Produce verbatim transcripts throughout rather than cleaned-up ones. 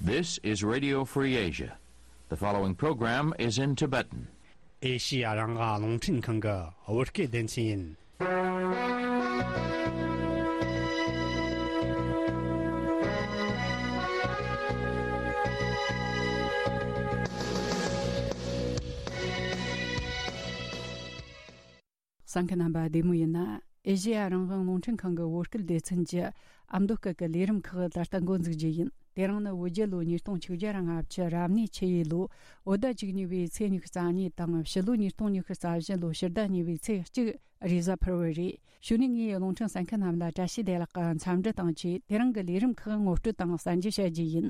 This is Radio Free Asia. The following program is in Tibetan. ཨེ་ཤི་ཡ་རང་དབང་རླུང་འཕྲིན་ཁང་གི་བོད་སྐད་སྡེ་ཚན་ཡིན། གསན་མཁན་རྣམ་པ་བདེ་མོ་ཡིན་ན། ཨེ་ཤེ་ཡ་རང་དབང་རླུང་འཕྲིན་ཁང་གི་བོད་སྐད་སྡེ་ཚན་གྱི་ཨ་མདོ་སྐད་ཀྱི་ལས་རིམ་ཁག་ད་ལྟ་འགོ་འཛུགས་རྒྱུ་ཡིན། དེ་རིང་ནི་བོད་རྒྱལ་ལོ་ཉིས་སྟོང་ཆིག་བརྒྱ་ར་ལྔ་བཅུ་རབ་གནས་ཆུ་ཡོས་ལོ་བོད་ཟླ་བཅུ་གཉིས་པའི་ཚེས་ཉི་ཤུ་རྩ་གཉིས་དང་ཕྱི་ལོ་ཉིས་སྟོང་ཉི་ཤུ་རྩ་བཞི་ལོ་ཕྱི་ཟླ་གཉིས་པའི་ཚེས་གཅིག་རེས་གཟའ་ཕུར་བུ་རེད། གཞུག་ནས་ངས་རླུང་འཕྲིན་གསན་མཁན་རྣམས་ལ་བཀྲ་ཤིས་བདེ་ལེགས་ཀྱི་འཚམས་འདྲི་དང་བཅས་དེ་རིང་གི་ལས་རིམ་ཁག་ངོ་སྤྲོད་དང་གསན་རྒྱུ་བྱ་རྒྱུ་ཡིན།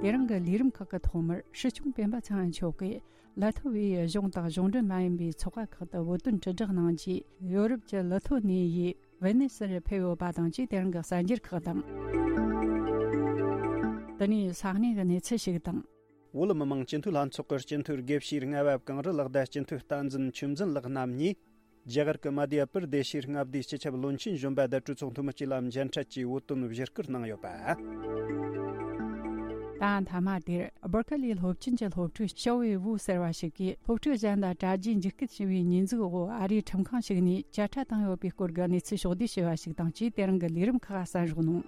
དེ་རིང་གི་ལས་རིམ་ཁག་གི་ཐོག་མར་སྲིད་སྐྱོང་སྤེན་པ་ཚེ་རིང་མཆོག་གིས། ལ་ཐོ་བའི་གཞུང་དང་གཞུང་འབྲེལ་མ་ཡིན་པའི་ཚོགས་པ་ཁག་ཏུ་བོད་དོན་དྲིལ་བསྒྲགས་གནང་རྗེས། ཡོ་རོབ་ཀྱི་ལི་ཐོ་ནི་ཡའི་ཝེ་ནེ་སིར་ཕེབས་ཡོད་པ་དང་བཅས་དེ་རིང་གི་གསར་འགྱུར་ཁག་དང་། དེ་ནས་ས་གནས་ཀྱི་གནས་ཚུལ་ཞིག་དང་། བོད་མི་མང་སྤྱི་འཐུས་ལྷན་ཚོགས་ཀྱི་སྤྱི་འཐུས་དགེ་བཤེས་རྔ་བབ་གངས་རི་ལགས་དང་སྤྱི་འཐུས་བསྟན་འཛིན་ཆོས་འཛིན་ལགས་རྣམ་གཉིས། རྒྱ་གར་གྱི་མ་དྷྱ་པུར་དེ་ཤའི་མངའ་སྡེའི་སྤྱི་ཁྱབ་བློན་ཆེན་གཞོན་པ་དང་གྲོས་ཚོགས་འཐུས་མི་བཅས་ལ་མཇལ་འཕྲད་ཀྱིས་བོད་དོན་བཞེས་སྐུལ་གནང་ཡོད་པ། ད་མཐའ་མ་དེར་སྦུར་ཁ་ལིའི་སློབ་ཆེན་གྱི་སློབ་ཕྲུག་ཞའོ་ཝེ་ཝུ་ཟེར་བ་ཞིག་གིས་སློབ་ཕྲུག་གཞན་ལ་དྲ་རྒྱའི་འཇིགས་སྐུལ་བྱས་པའི་ཉེས་འཛུགས་འོག་ཨ་རིའི་ཁྲིམས་ཁང་ཞིག་ནས་བཅད་ཁྲ་བཏང་ཡོད་པའི་སྐོར་གྱི་གནས་ཚུལ་ཕྱོགས་བསྡུས་བྱས་པ་ཞིག་དང་བཅས་དེ་རིང་གི་ལས་རིམ་ཁག་གསན་རོགས་གནང་།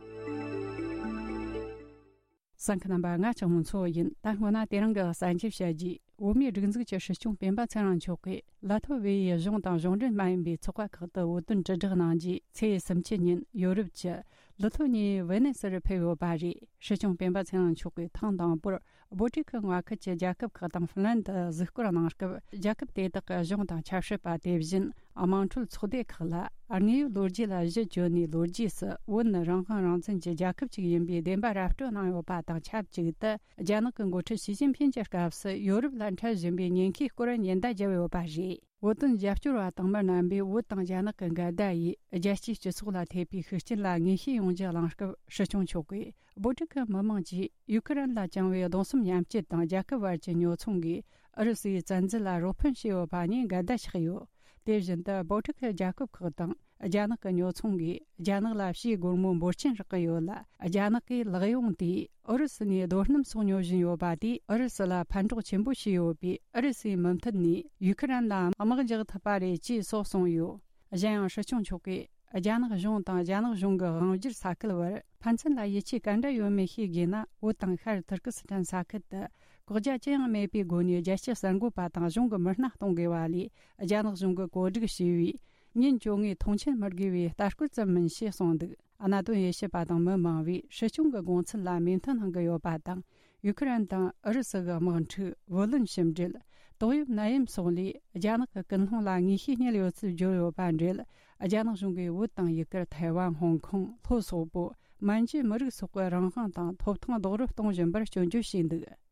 གསན་མཁན་རྣམ་པ་ང་ཆགས་མོ་མཚོ་ཡིན། ད་སྔོན་ན་དེ་རིང་གི་གསར་འགྱུར་བཤད་རྗེས། བོད་མིའི་སྒྲིག་འཛུགས་ཀྱི་སྲིད་སྐྱོང་སྤེན་པ་ཚེ་རིང་མཆོག་གིས་ལ་ཐོ་བེ་ཡི་གཞུང་དང་གཞུང་འབྲེལ་མ་ཡིན་པའི་ཚོགས་པ་ཁག་ཏུ་བོད་དོན་དྲིལ་བསྒྲགས་གནང་རྗེས། ཚེས་སུམ་ཅུ་ཉིན་ཡོ་རོབ་ཀྱི་ལི་ཐོ་ནི་ཡའི་ཝེ་ནེ་སིར་ཕེབས་ཡོད་པ་རེད། སྲིད་སྐྱོང་སྤེན་པ་ཚེ་རིང་མཆོག་གིས་ཐེངས་དང་པོར་བོད་ཀྱི་མངའ་ཁུལ་གྱི་རྒྱལ་ཁབ་ཁག་དང་ཧྥིན་ལན་དུ་གཟིགས་སྐོར་གནང་སྐབས། རྒྱལ་ཁབ་དེ་དག་གི་གཞུང་དང་ཆབ་སྲིད་པ། དེ་བཞིན་དམངས་ཁྲོད་ཚོགས་སྡེ་ཁག་ལ། དངོས་ཡོད་ལོ་རྒྱུས་ལ་གཞི་བཅོལ་ནས། ལོ་རྒྱུས་སུ་བོད་ནི་རང་དབང་རང་བཙན་གྱི་རྒྱལ་ཁབ་ཅིག་ཡིན་པའི་བདེན་པ་ར་སྤྲོད་གནང་ཡོད་པ་དང་ཆབས་ཅིག་ཏུ། རྒྱ་ནག་གི་འགོ་ཁྲིད་ཞི་ཅིན་ཕིན་གྱི་སྐབས་སུ་ཡོ་རོབ་ལ་འཕྲད་བཞིན་པའི་ཉེན་ཁའི་སྐོར་ཉེན་བརྡ་བརྒྱབ་ཡོད་པ་རེད། བོད་དོན་རྒྱབ་སྐྱོར་བ་དང་མི་རྣམ་པས་བོད་དང་རྒྱ་ནག་གི་འགལ་ཟླ་ཡི་རྒྱལ་སྤྱིའི་སྤྱི་ཚོགས་ལ་ཐེབས་པའི་ཤུགས་རྐྱེན་ལ་ངེས་ཤེས་ཡོང་རྒྱུ་གླེང་སྐབས། སྲིད་སྐྱོང་མཆོག་གིས། བོད་ཕྲུག་གི་མི་མང་གིས་ཡུ་ཁུ་རེན་ལ་བཅངས་པའི་གདུང་སེམས་མཉམ་སྐྱེད་དང་། རྒྱལ་ཁབ་བར་གྱི་ཉོ་ཚོང་གིས་ཨུ་རུ་སུའི་བཙན་འཛུལ་ལ་རོགས་ཕན་བྱས་ཡོད་པ་ནས་འགལ་ཟླ་ཆགས་ཡོད། དེ་བཞིན་དུ། བོད་ཕྲུག་གི་རྒྱལ་ཁབ་ཁག་དང་རྒྱ་ནག་གི་ཉོ་ཚོང་གིས་རྒྱ་ནག་ལ་ཕྱིའི་སྒོར་མོ་འབོར་ཆེན་རག་གི་ཡོད་ལ། རྒྱ་ནག་གིས་ལག་ཡོང་དེས་ཨུ་རུ་སུ་ནས་རྡོ་སྣུམ་སོགས་ཉོ་བཞིན་ཡོད་པ་དེས་ཨུ་རུ་སུ་ལ་ཕན་གྲོགས་ཆེན་པོ་བྱས་ཡོད་པས། ཨུ་རུ་སུའི་མུ་མཐུད་ནས་ཡུ་ཁུ་རེན་ལ་དམག་རྒྱག་ཐུབ་པ་རེད་ཅེས་སོགས་གསུངས་ཡོད། གཞན་ཡང་། སྲིད་སྐྱོང་མཆོག་གིས། རྒྱ་ནག་གཞུང་དང་རྒྱ་ནག་གཞུང་གི་དབང་སྒྱུར་ས་ཁུལ་བར་ཕན་ཚུན་ལ་ཡིད་ཆེས་ག་འདྲ་ཡོད་མེད་ཤེས་དགོས་ན། བོད་དང་ཤར་ཐུར་ཀི་སི་ཐན་ས་ཁུལ་དུ་བཀག་རྒྱ་ཅི་ཡང་མེད་པའི་སྒོ་ནས་རྒྱལ་སྤྱིའི་གསར་འགོད་པ་དང་གཞུང་གི་མི་སྣ་གཏོང་དགོས་པ་ལས། རྒྱ་ནག་གཞུང་གིས་གོ་སྒྲིག་བྱས་པའི་ཉིན་བཅོ་ལྔའི་མཐོང་མཆན་མི་དགོས་པའི་ལྟ་སྐོར་ཙམ་མིན་ཞེས་གསུངས་འདུག། གནད་དོན་དབྱེ་ཞིབ་པ་དང་མི་མང་བས་སྲིད་སྐྱོང་གི་དགོངས་ཚུལ་ལ་མོས་མཐུན་གནང་གི་ཡོད་པ་དང་། ཡུ་ཁུ་རེན་དང་ཨུ་རུ་སུ་གི་དམག་འཁྲུག་བུ་ལོན་ཞིབ་འབྲེལ། ཏོག་དབྱིབས་ནད་ཡམས་སོགས་ལས་རྒྱ་ནག་གི་ཀུན་སློང་ལ་ངེས་ཤེས་རྙེད་ཡོད་ཚུལ་བརྗོད་ཡོད་པ་འབྲེལ། རྒྱ་ནག་གཞུང་གིས་བོད་དང་ཡུ་གུར། ཐའེ་ཝན། ཧོང་ཀོང་། ལྷོ་སོག་པོ། མན་ཇུའི་མི་རིགས་སོགས་ཀྱི་རང་དབང་དང་ཐོབ་ཐང་རྡོག་རོལ་གཏོང་བཞིན་པར་སྐྱོན་བརྗོད་བྱས་འདུག།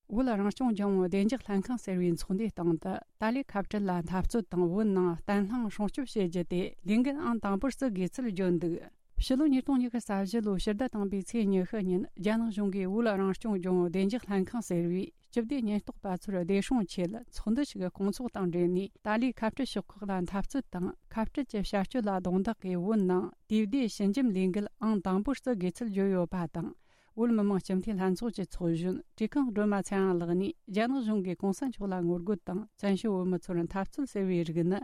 བོད་རང་སྐྱོང་ལྗོངས་བདེ་འཇགས་ལྷན་ཁང་ཟེར་བའི་ཚོགས་འདུའི་སྟེང་དུ། ཏཱ་ལའི་ཁ་བྲལ་ལ་འཐབ་རྩོད་དང་། བོད་ནང་བརྟན་ལྷིང་སྲུང་སྐྱོབ་བྱེད་རྒྱུ་དེ་ལས་འགན་ཨང་དང་པོར་བརྩི་དགོས་ཚུལ་བརྗོད་འདུག། ཕྱི་ལོ་ཉིས་སྟོང་ཉི་ཤུ་རྩ་བཞི་ལོའི་ཕྱི་ཟླ་དང་པོའི་ཚེས་ཉི་ཤུ་ཉིན། རྒྱ་ནག་གཞུང་གིས་བོད་རང་སྐྱོང་ལྗོངས་བདེ་འཇགས་ལྷན་ཁང་ཟེར་བའི་སྤྱི་བདེ་ཉེན་རྟོག་པ་ཚོར་བདེ་སྲུང་ཆེད་ཚོགས་འདུ་ཞིག་སྐོང་ཚོགས་དང་འབྲེལ་ནས། ཏཱ་ལའི་ཁ་བྲལ་ཕྱོགས་ཁག་ལ་འཐབ་རྩོད་དང་། ཁ་བྲལ་གྱི་བྱ་སྤྱོད་ལ་རྡུང་རྡེག་གིས། བོད་ནང་དུས་བདེ་ཞི་འཇམ་ལས་འགུལ་ཨང་དང་པོར་བརྩི་དགོས་ཚུལ་བརྗོད་ཡོད་པ་དང་། བོད་མི་མང་སྤྱི་འཐུས་ལྷན་ཚོགས་ཀྱི་ཚོགས་གཞོན་བཀྲས་ཁང་སྒྲོལ་མ་ཚེ་རིང་ལགས་ནས། རྒྱ་ནག་གཞུང་གིས་གོང་ས་མཆོག་ལ་ངོ་རྒོལ་དང་། བཙན་བྱོལ་བོད་མི་ཚོར་འཐབ་རྩོད་ཟེར་བའི་རིགས་ནི།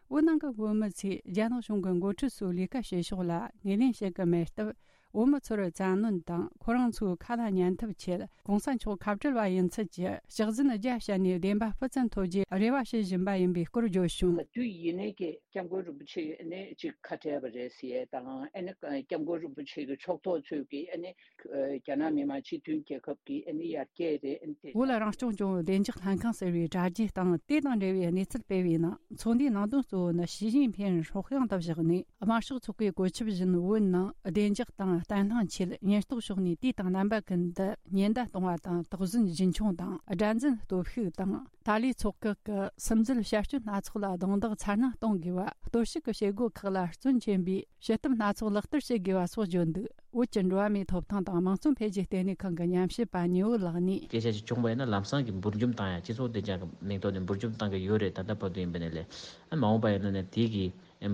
བོད་ནང་གི་བོད་མི་ཚོས་རྒྱ་ནག་གཞུང་གི་འགོ་ཁྲིད་ཚོའི་ལས་ཀ་བྱེད་ཕྱོགས་ལ་ངོས་ལེན་བྱེད་ཀྱི་མེད་སྟབས། བོད་མི་ཚོར་བཙན་གནོན་དང་། ཁོ་རང་ཚོའི་ཁ་ལ་ཉན་ཐབས་ཆེད། གོང་ས་མཆོག་ཁ་བྲལ་བ་ཡིན་ཚུལ་གྱི་ཕྱག་འཛིན་རྒྱ་བཤད་ནས། བདེན་པ་སྤུ་ཙམ་ཐོབ་རྒྱུའི་རེ་བ་བྱེད་བཞིན་པ་ཡིན་པའི་སྐོར་བརྗོད་བྱུང་། དུས་ཡིན་ནའི་ཀྱི་སྐྱབས་མགོན་རིན་པོ་ཆེ་ནས་ཅིག་ཁ་བྲལ་བ་རེད་ཟེར་ཡས་དང་། ཨ་ནི་སྐྱབས་མགོན་རིན་པོ་ཆེ་གི་ཕྱོགས་གཏོགས་ཚོས་ཀྱི་ཨ་ནི། རྒྱ་ནག་མི་དམངས་སྤྱི་མཐུན་རྒྱལ་ཁབ་ཀྱི་ཨ་ནི་ཡར་རྒྱས་རེད། ཨ་ནི་དེ། བོད་རང་སྐྱོང་ལྗོངས་བདེ་འཇགས་ལྷན་ཁང་ཟེར་བའི་དྲ་རྒྱའི་སྟེང་དེ་དང་འབྲེལ་བའི་གནས་ཚུལ་སྤེལ་བའི་ནང་། ཚོགས་འདུའི་ནང་དོན་གཙོ་བོ་ནི་ཞི་ཅིན་ཕིན་སྲོག་ཤིང་དུ་བཞག་ནས། དམར་ཤོག་ཚོགས་པའི་བཀོད་ཁྱབ་བཞིན། བོད་ནང་བདེ་འཇགས་དང་བརྟན་ལྷིང་ཆེད་ཉེན་རྟོག་ཕྱོགས་ནས་དུས་དང་རྣམ་པ་ཀུན་ཏུ་ཉེན་བརྡ་གཏོང་བ་དང་། དོགས་ཟོན་རྒྱུན་འཁྱོངས་དང་། དགྲར་འཛིན་སྟོབས་ཤུགས་དང་། ཏཱ་ལའི་ཚོགས་ཁག་གི་སིམ་འཛུལ་བྱ་སྤྱོད་སྣ་ཚོགས་ལ་རྡུང་རྡེག་ཚ་ནན་གཏོང་དགོས་པ། གཏོར་བཤིག་གི་བྱེད་སྒོ་ཁག་ལ་བརྩོན་ཆེན་པོས་བྱེད་ཐབས་སྣ་ཚོགས་ལག་བསྟར་བྱེད་དགོས་པ་སོགས་བརྗོད་འདུག། བོད་ཀྱི་འགྲོ་བ་མིའི་ཐོབ་ཐང་དང་དམངས་གཙོ་འཕེལ་རྒྱས་ལྟེ་གནས་ཁང་གི་ཉམས་ཞིབ་པ་ཉི་འོད་ལགས་ནས། སྐད་ཆ་ཞིག་བྱུང་བ་ཡིན་ན། ལམ་སང་གི་འབུར་འཇོམས་བཏང་ཡ། སྤྱི་ཚོགས་བདེ་འཇགས་ཀྱི་མིང་ཐོག་ནས་འབུར་འཇོམས་བཏང་གི་ཡོད་རེད། ད་ལྟ་བར་དུ་ཡིན་པ་ནས་ལས། ཨ། མ་འོངས་པ་ཡིན་ན་ནས་དེ་གི་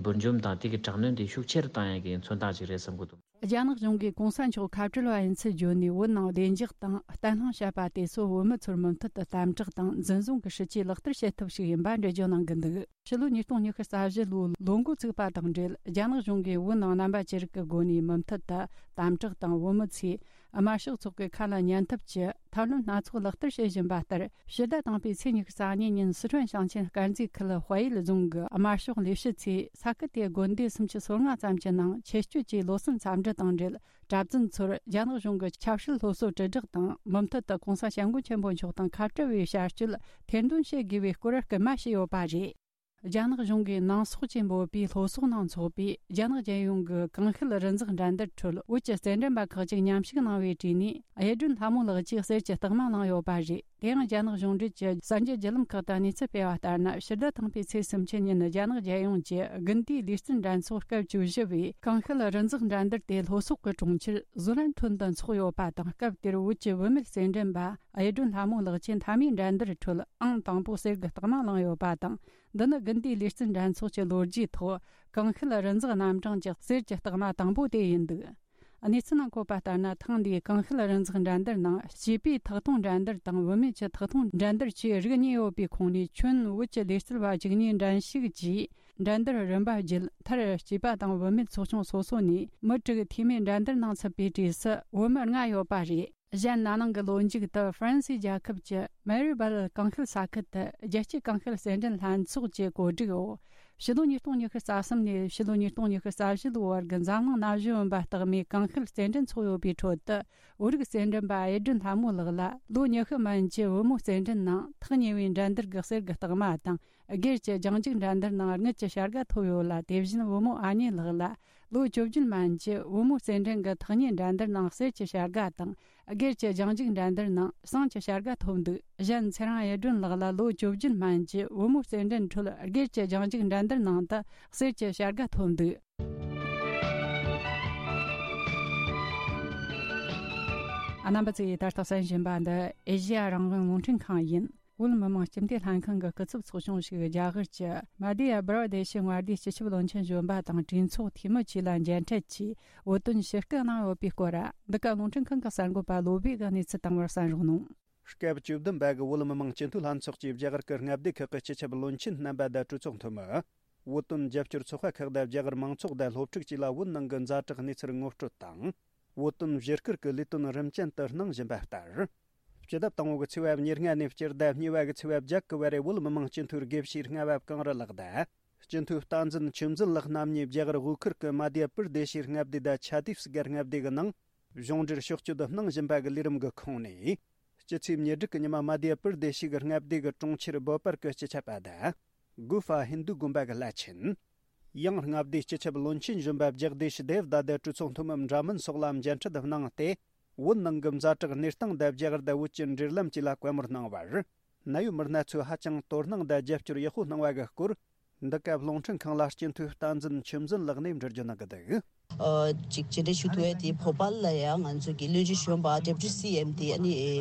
འབུར་འཇོམས་དང་དེ་གི་དྲག་གནོན་དེ་ཤུགས་ཆེ་རུ་བཏང་ཡ་གི་མཚོན་རྟགས་ཅིག་རེད་བསམ་གི་འདུག། རྒྱ་ནག་གཞུང་གིས་གོང་ས་མཆོག་ཁ་བྲལ་བ་ཡིན་ཚུལ་བརྗོད་ནས། བོད་ནང་བདེ་འཇགས་དང་བརྟན་ལྷིང་བཤད་པ་དེ་ཚོ་བོད་མི་ཚོར་མུ་མཐུད་དུ་དམ་དྲག་དང་འཛིན་བཟུང་གི་སྲིད་ཇུས་ལག་བསྟར་བྱེད་ཐབས་ཤིག་ཡིན་པ་འགྲེལ་བརྗོད་གནང་གི་འདུག་ཕྱི་ལོ་ཉིས་སྟོང་ཉི་ཤུ་རྩ་བཞི་ལོའི་ལོ་འགོ་ཚུགས་པ་དང་འབྲེལ། རྒྱ་ནག་གཞུང་གིས་བོད་ནང་རྣམ་པ་ཅི་རིགས་ཀྱི་སྒོ་ནས་མུ་མཐུད་དུ་དམ་དྲག་དང་། བོད་མི་ཚོས་དམར་ཤོག་ཚོགས་པའི་ཁ་ལ་ཉན་ཐབས་ཀྱི་ཐབས་ལམ་སྣ་ཚོགས་ལག་བསྟར་བྱེད་བཞིན་པ་ལྟར། ཕྱི་ཟླ་དང་པོའི་ཚེས་ཉི་ཤུ་རྩ་གཉིས་ཉིན་སི་ཁྲོན་ཞིང་ཆེན་དཀར་མཛེས་ཁུལ་དཔལ་ཡུལ་རྫོང་གི་དམར་ཤོག་ལས་བྱེད་ཚོས་ས་ཁུལ་དེའི་དགོན་སྡེ་སུམ་ཅུ་སོ་ལྔ་ཙམ་གྱི་ནང་ཆེད་སྤྱོད་ཀྱིས་ལོ་གསར་འཚམས་འདྲི་དང་འབྲེལ། གྲྭ་བཙུན་ཚོར་རྒྱ་ནག་གཞུང་གི་ཆབ་སྲིད་སློབ་གསོ་དྲིལ་བསྒྲགས་དང་། མུ་མཐུད་དུ་༸གོང་ས་༸སྐྱབས་མགོན་ཆེན་པོ་མཆོག་དང་ཁ་བྲལ་བའི་བྱ་སྤྱོད་ཐེར་འདོན་བྱེད་དགོས་པའི་སྐོར་སྐུལ་མ་བྱས་ཡོད་པ་རེད། རྒྱ་ནག་གཞུང་གིས་ནང་སོག་ཅེས་འབོད་པའི་སློབ་གསོ་ནང་འཚོགས་པའི་རྒྱ་ནག་རྒྱལ་ཡོངས་ཀྱི་ཀང་ཤུལ་རི་འཛེག་འགྲན་བསྡུར་ཁྲོད། བོད་ཀྱི་རྩེད་འགྲན་པ་ཁག་ཅིག་མཉམ་ཞུགས་གནང་བའི་གྲས་ནས། གཡུ་སྒྲོན་ལྷ་མོ་ལགས་ཀྱིས་གསེར་གྱི་རྟགས་མ་བླངས་ཡོད་པ་རེད། དེ་ཡང་རྒྱ་ནག་གཞུང་འབྲེལ་གྱི་གསར་འགྱུར་བརྒྱུད་ལམ་ཁག་ཏུ་གནས་ཚུལ་སྤེལ་བ་ལྟར་ན། ཕྱི་ཟླ་དང་པོའི་ཚེས་སུམ་ཅུ་ཉིན་རྒྱ་ནག་རྒྱལ་ཡོངས་ཀྱི་དགུན་དུས་ལུས་རྩལ་འགྲན་ཚོགས་སྐབས་བཅུ་བཞི་བའི་ཀང་ཤུལ་རི་འཛེག་འགྲན་བསྡུར་དེ་ལྷོ་སོག་གི་གྲོང་ཁྱེར་ཟུ་ལན་ཁྲོན་དུ་འཚོགས་ཡོད་པ་དང་། སྐབས་དེར་བོད་ཀྱི་བུད་མེད་རྩེད་འགྲན་པ་གཡུ་སྒྲོན་ལྷ་མོ་ལགས་ཀྱིས་མཐའ་མའི་འགྲན་བསྡུར་ཁྲོད་ཨང་དང་པོ་གསེར་གྱི་རྟགས་མ་བླངས་ཡོད་པ་དང་། འདི་ནི་དགུན་དུས་ལུས་རྩལ་འགྲན་ཚོགས་ཀྱི་ལོ་རྒྱུས་ཐོག་ཀང་ཤུལ་རི་འཛེག་རྣམ་གྲངས་ཀྱི་གསེར་གྱི་རྟགས་མ་དང་པོ་དེ་ཡིན་འདུག་གནས་ཚུལ་ནང་འཁོད་པ་ལྟར་ན། ཐེངས་འདིའི་ཀང་ཤུལ་རི་འཛེག་འགྲན་བསྡུར་ནང་སྐྱེས་པའི་ཐག་གཏོང་འགྲན་བསྡུར་དང་བུད་མེད་ཀྱི་ཐག་གཏོང་འགྲན་བསྡུར་བཅས་རིགས་གཉིས་ཡོད་པའི་ཁོངས་ནས། ཁྱོན་བོད་ཀྱི་ལུས་རྩལ་བ་བཅུ་གཉིས་འགྲན་ཞུགས་ཀྱིས་འགྲན་བསྡུར་རིམ་པ་བརྒྱུད། མཐར་སྐྱེས་པ་དང་བུད་མེད་ཚོགས་ཆུང་སོ་སོ་ནས་མི་དྲུག་འཐུས་མི་འགྲན་བསྡུར་ནང་ཚུད་པའི་གྲས་སུ་བོད་མི་ལྔ་ཡོད་པ་རེད། གཞན། ན་ནིང་གི་ལོ་མཇུག་ཏུ་ཧྥ་རན་སིའི་རྒྱལ་ཁབ་ཀྱི་མེ་རི་བལ་ཀང་ཤུལ་ས་ཁུལ་དུ་རྒྱལ་སྤྱིའི་ཀང་ཤུལ་རྩེད་འགྲན་ལྷན་ཚོགས་ཀྱི་གོ་སྒྲིག་འོག་ཕྱི་ལོ་ཉིས་སྟོང་ཉི་ཤུ་རྩ་གསུམ་ནས་ཕྱི་ལོ་ཉིས་སྟོང་ཉི་ཤུ་རྩ་བཞི་ལོའི་བར་གྱི་འཛམ་གླིང་ན་གཞོན་བུམ་པ་རྟགས་མའི་ཀང་ཤུལ་རྩེད་འགྲན་འཚོགས་ཡོད་པའི་ཁྲོད་དུ། བོད་རིགས་རྩེད་འགྲན་པ་གཡུ་སྒྲོན་ལྷ་མོ་ལགས་ལ་ལོ་ཉི་ཤུ་མན་གྱི་བུ་མོ་རྩེད་འགྲན་ནང་ཐག་ཉེ་བའི་འགྲན་བསྡུར་གྱི་གསེར་གྱི་རྟགས་མ་དང་། སྒེར་གྱི་རྒྱང་རྒྱུག་འགྲན་བསྡུར་ནང་དངུལ་གྱི་བྱ་དགའ་ཐོབ་ཡོད་ལ། དེ་བཞིན་བུ་མོ་ཨ་ཉེ་ལགས་ལ་ལོ་བཅུ་བརྒྱད་མན་གྱི་བུ་མོ་རྩེད་འགྲན་གྱི་ཐག་ཉེ་འགྲན་བསྡུར་ནང་གསེར་གྱི་བྱ་དགའ་དང་། སྒེར་གྱི་རྒྱང་རྒྱུག་འགྲན་བསྡུར་ནང་ཟངས་ཀྱི་བྱ་དགའ་ཐོབ་འདུག་གཞན། ཚེ་རིང་གཡུ་སྒྲོན་ལགས་ལ་ལོ་བཅུ་བརྒྱད་མན་གྱི་བུ་མོ་རྩེད་འགྲན་ཁྲོད་སྒེར་གྱི་རྒྱང་རྒྱུག་འགྲན་བསྡུར་ནང་དུ་གསེར་གྱི་བྱ་དགའ་ཐོབ་འདུག་རྣམ་པ་ཚོས་ད་ལྟ་གསན་བཞིན་པ་འདི་ཨེ་ཤེ་ཡ་རང་དབང་རླུང་འཕྲིན་ཁང་ཡིན། བོད་མི་མང་སྤྱི་འཐུས་ལྷན་ཁང་གི་སྐུ་ཚབ་ཚོགས་ཆུང་ཞིག་རྒྱ་གར་གྱི་མ་དྷྱ་པྲ་དེ་ཤི་མངའ་སྡེའི་སྤྱི་ཁྱབ་བློན་ཆེན་གཞོན་པ་དང་གྲོས་ཚོགས་འཐུས་མི་བཅས་ལ་མཇལ་འཕྲད་ཀྱིས། བོད་དོན་ཞུ་སྐུལ་གནང་ཡོད་པའི་སྐོར། འདི་ག་རླུང་འཕྲིན་ཁང་གི་གསར་འགོད་པ་བློ་བྷེ་གིས་གནས་ཚུལ་བཏང་བར་གསན་རོགས་གནང་། སྐབས་བཅུ་བདུན་པ་གི་བོད་མི་མང་སྤྱི་འཐུས་ལྷན་ཚོགས་ཀྱིས་རྒྱ་གར་གྱི་མངའ་སྡེ་ཁག་གི་སྤྱི་ཁྱབ་བློན་ཆེན་རྣམ་པ་དང་གྲོས་ཚོགས་འཐུས་མི། བོད་དོན་རྒྱབ་སྐྱོར་ཚོགས་པ་ཁག་དང་རྒྱ་གར་མང་ཚོགས་དང་སློབ་ཕྲུག་བཅས་ལ་བོད་ནང་གི་ཛ་དྲག་གནས་ཚུལ་ངོ་སྤྲོད་དང་། བོད་དོན་བཞི་སྐོར་གྱི་ལས་དོན་རིམ་ཅན་དུ་གནང་བཞིན་པ་ལྟར། སྤྱི་ཟླ་དང་པོ་གི་ཚེས་པ་ཉེར་ལྔ་ནས་སྤྱི་ཟླ་གཉིས་པ་གི་ཚེས་པ་བརྒྱད་གི་བར་རེ་བོད་མི་མང་སྤྱི་འཐུས་དགེ་བཤེས་རྔ་བབ་གངས་རི་ལགས་དང་། སྤྱི་འཐུས་བསྟན་འཛིན་ཆོས་འཛིན་ལགས་རྣམ་གཉིས་རྒྱ་གར་དབུས་ཁུལ་གྱི་མ་དྷྱ་པུར་དེ་ཤི་མངའ་སྡེ་དང་ཆ་དིབ་སི་གྷལ་མངའ་སྡེ་གི་ནང་གཞུང་འབྲེལ་ཕྱོགས་བསྐྱོད་གནང་བཞིན་པ་གི་ལས་རིམ་གྱི་ཁོངས་ནས། སྤྱི་ཚེས་ཉེར་དྲུག་གི་ཉི་མ་མ་དྷྱ་པུར་དེ་ཤི་གི་མངའ་སྡེ་གི་གྲོང་ཁྱེར་བོ་པར་གྱི་སྤྱི་ཁྱབ་པ་དང་། གུ་ཧྥ་ཧིན་དུ་དགོན་པ་གི་བླ་ཆེན། ཡང་མངའ་སྡེའི་སྤྱི་ཁྱབ་བློན་ཆེན་གཞོན་པ་ཇག་དེ་ཤི་དེབ་དང་དེ་གྲོས་ཚོགས་འཐུས་མི་འདྲ་མིན་སོགས་ལ་མཇལ་འཕྲད་གནང་སྟེ། བོད་ནང་གི་ཛ་དྲག་གནས་སྟངས་དང་རྒྱ་གར་དང་བོད་ཀྱི་འབྲེལ་ལམ་བཅས་ལ་བཀའ་མོལ་གནང་བར། གནད་ཡོད་མི་སྣ་ཚོས་ཧ་ཅང་དོ་སྣང་དང་རྒྱབ་སྐྱོར་ཡག་པོ་གནང་བ་གི་སྐོར། འདི་སྐབས་རླུང་འཕྲིན་ཁང་ལ་སྤྱི་འཐུས་བསྟན་འཛིན་ཆོས་འཛིན་ལགས་ནས་འགྲེལ་བརྗོད་གནང་གི་འདུག་ཨ། ཅིག་མཇལ་འཕྲད་ཞུ་ཐུབ་ཡས་དེ་བོ་པལ་ལ་ཡང་ང་ཚོ་གི་བློན་ཆེན་གཞོན་པ་ཌེ་པུ་ཊི་སི་ཨེམ་དེ་ཨ་ནི་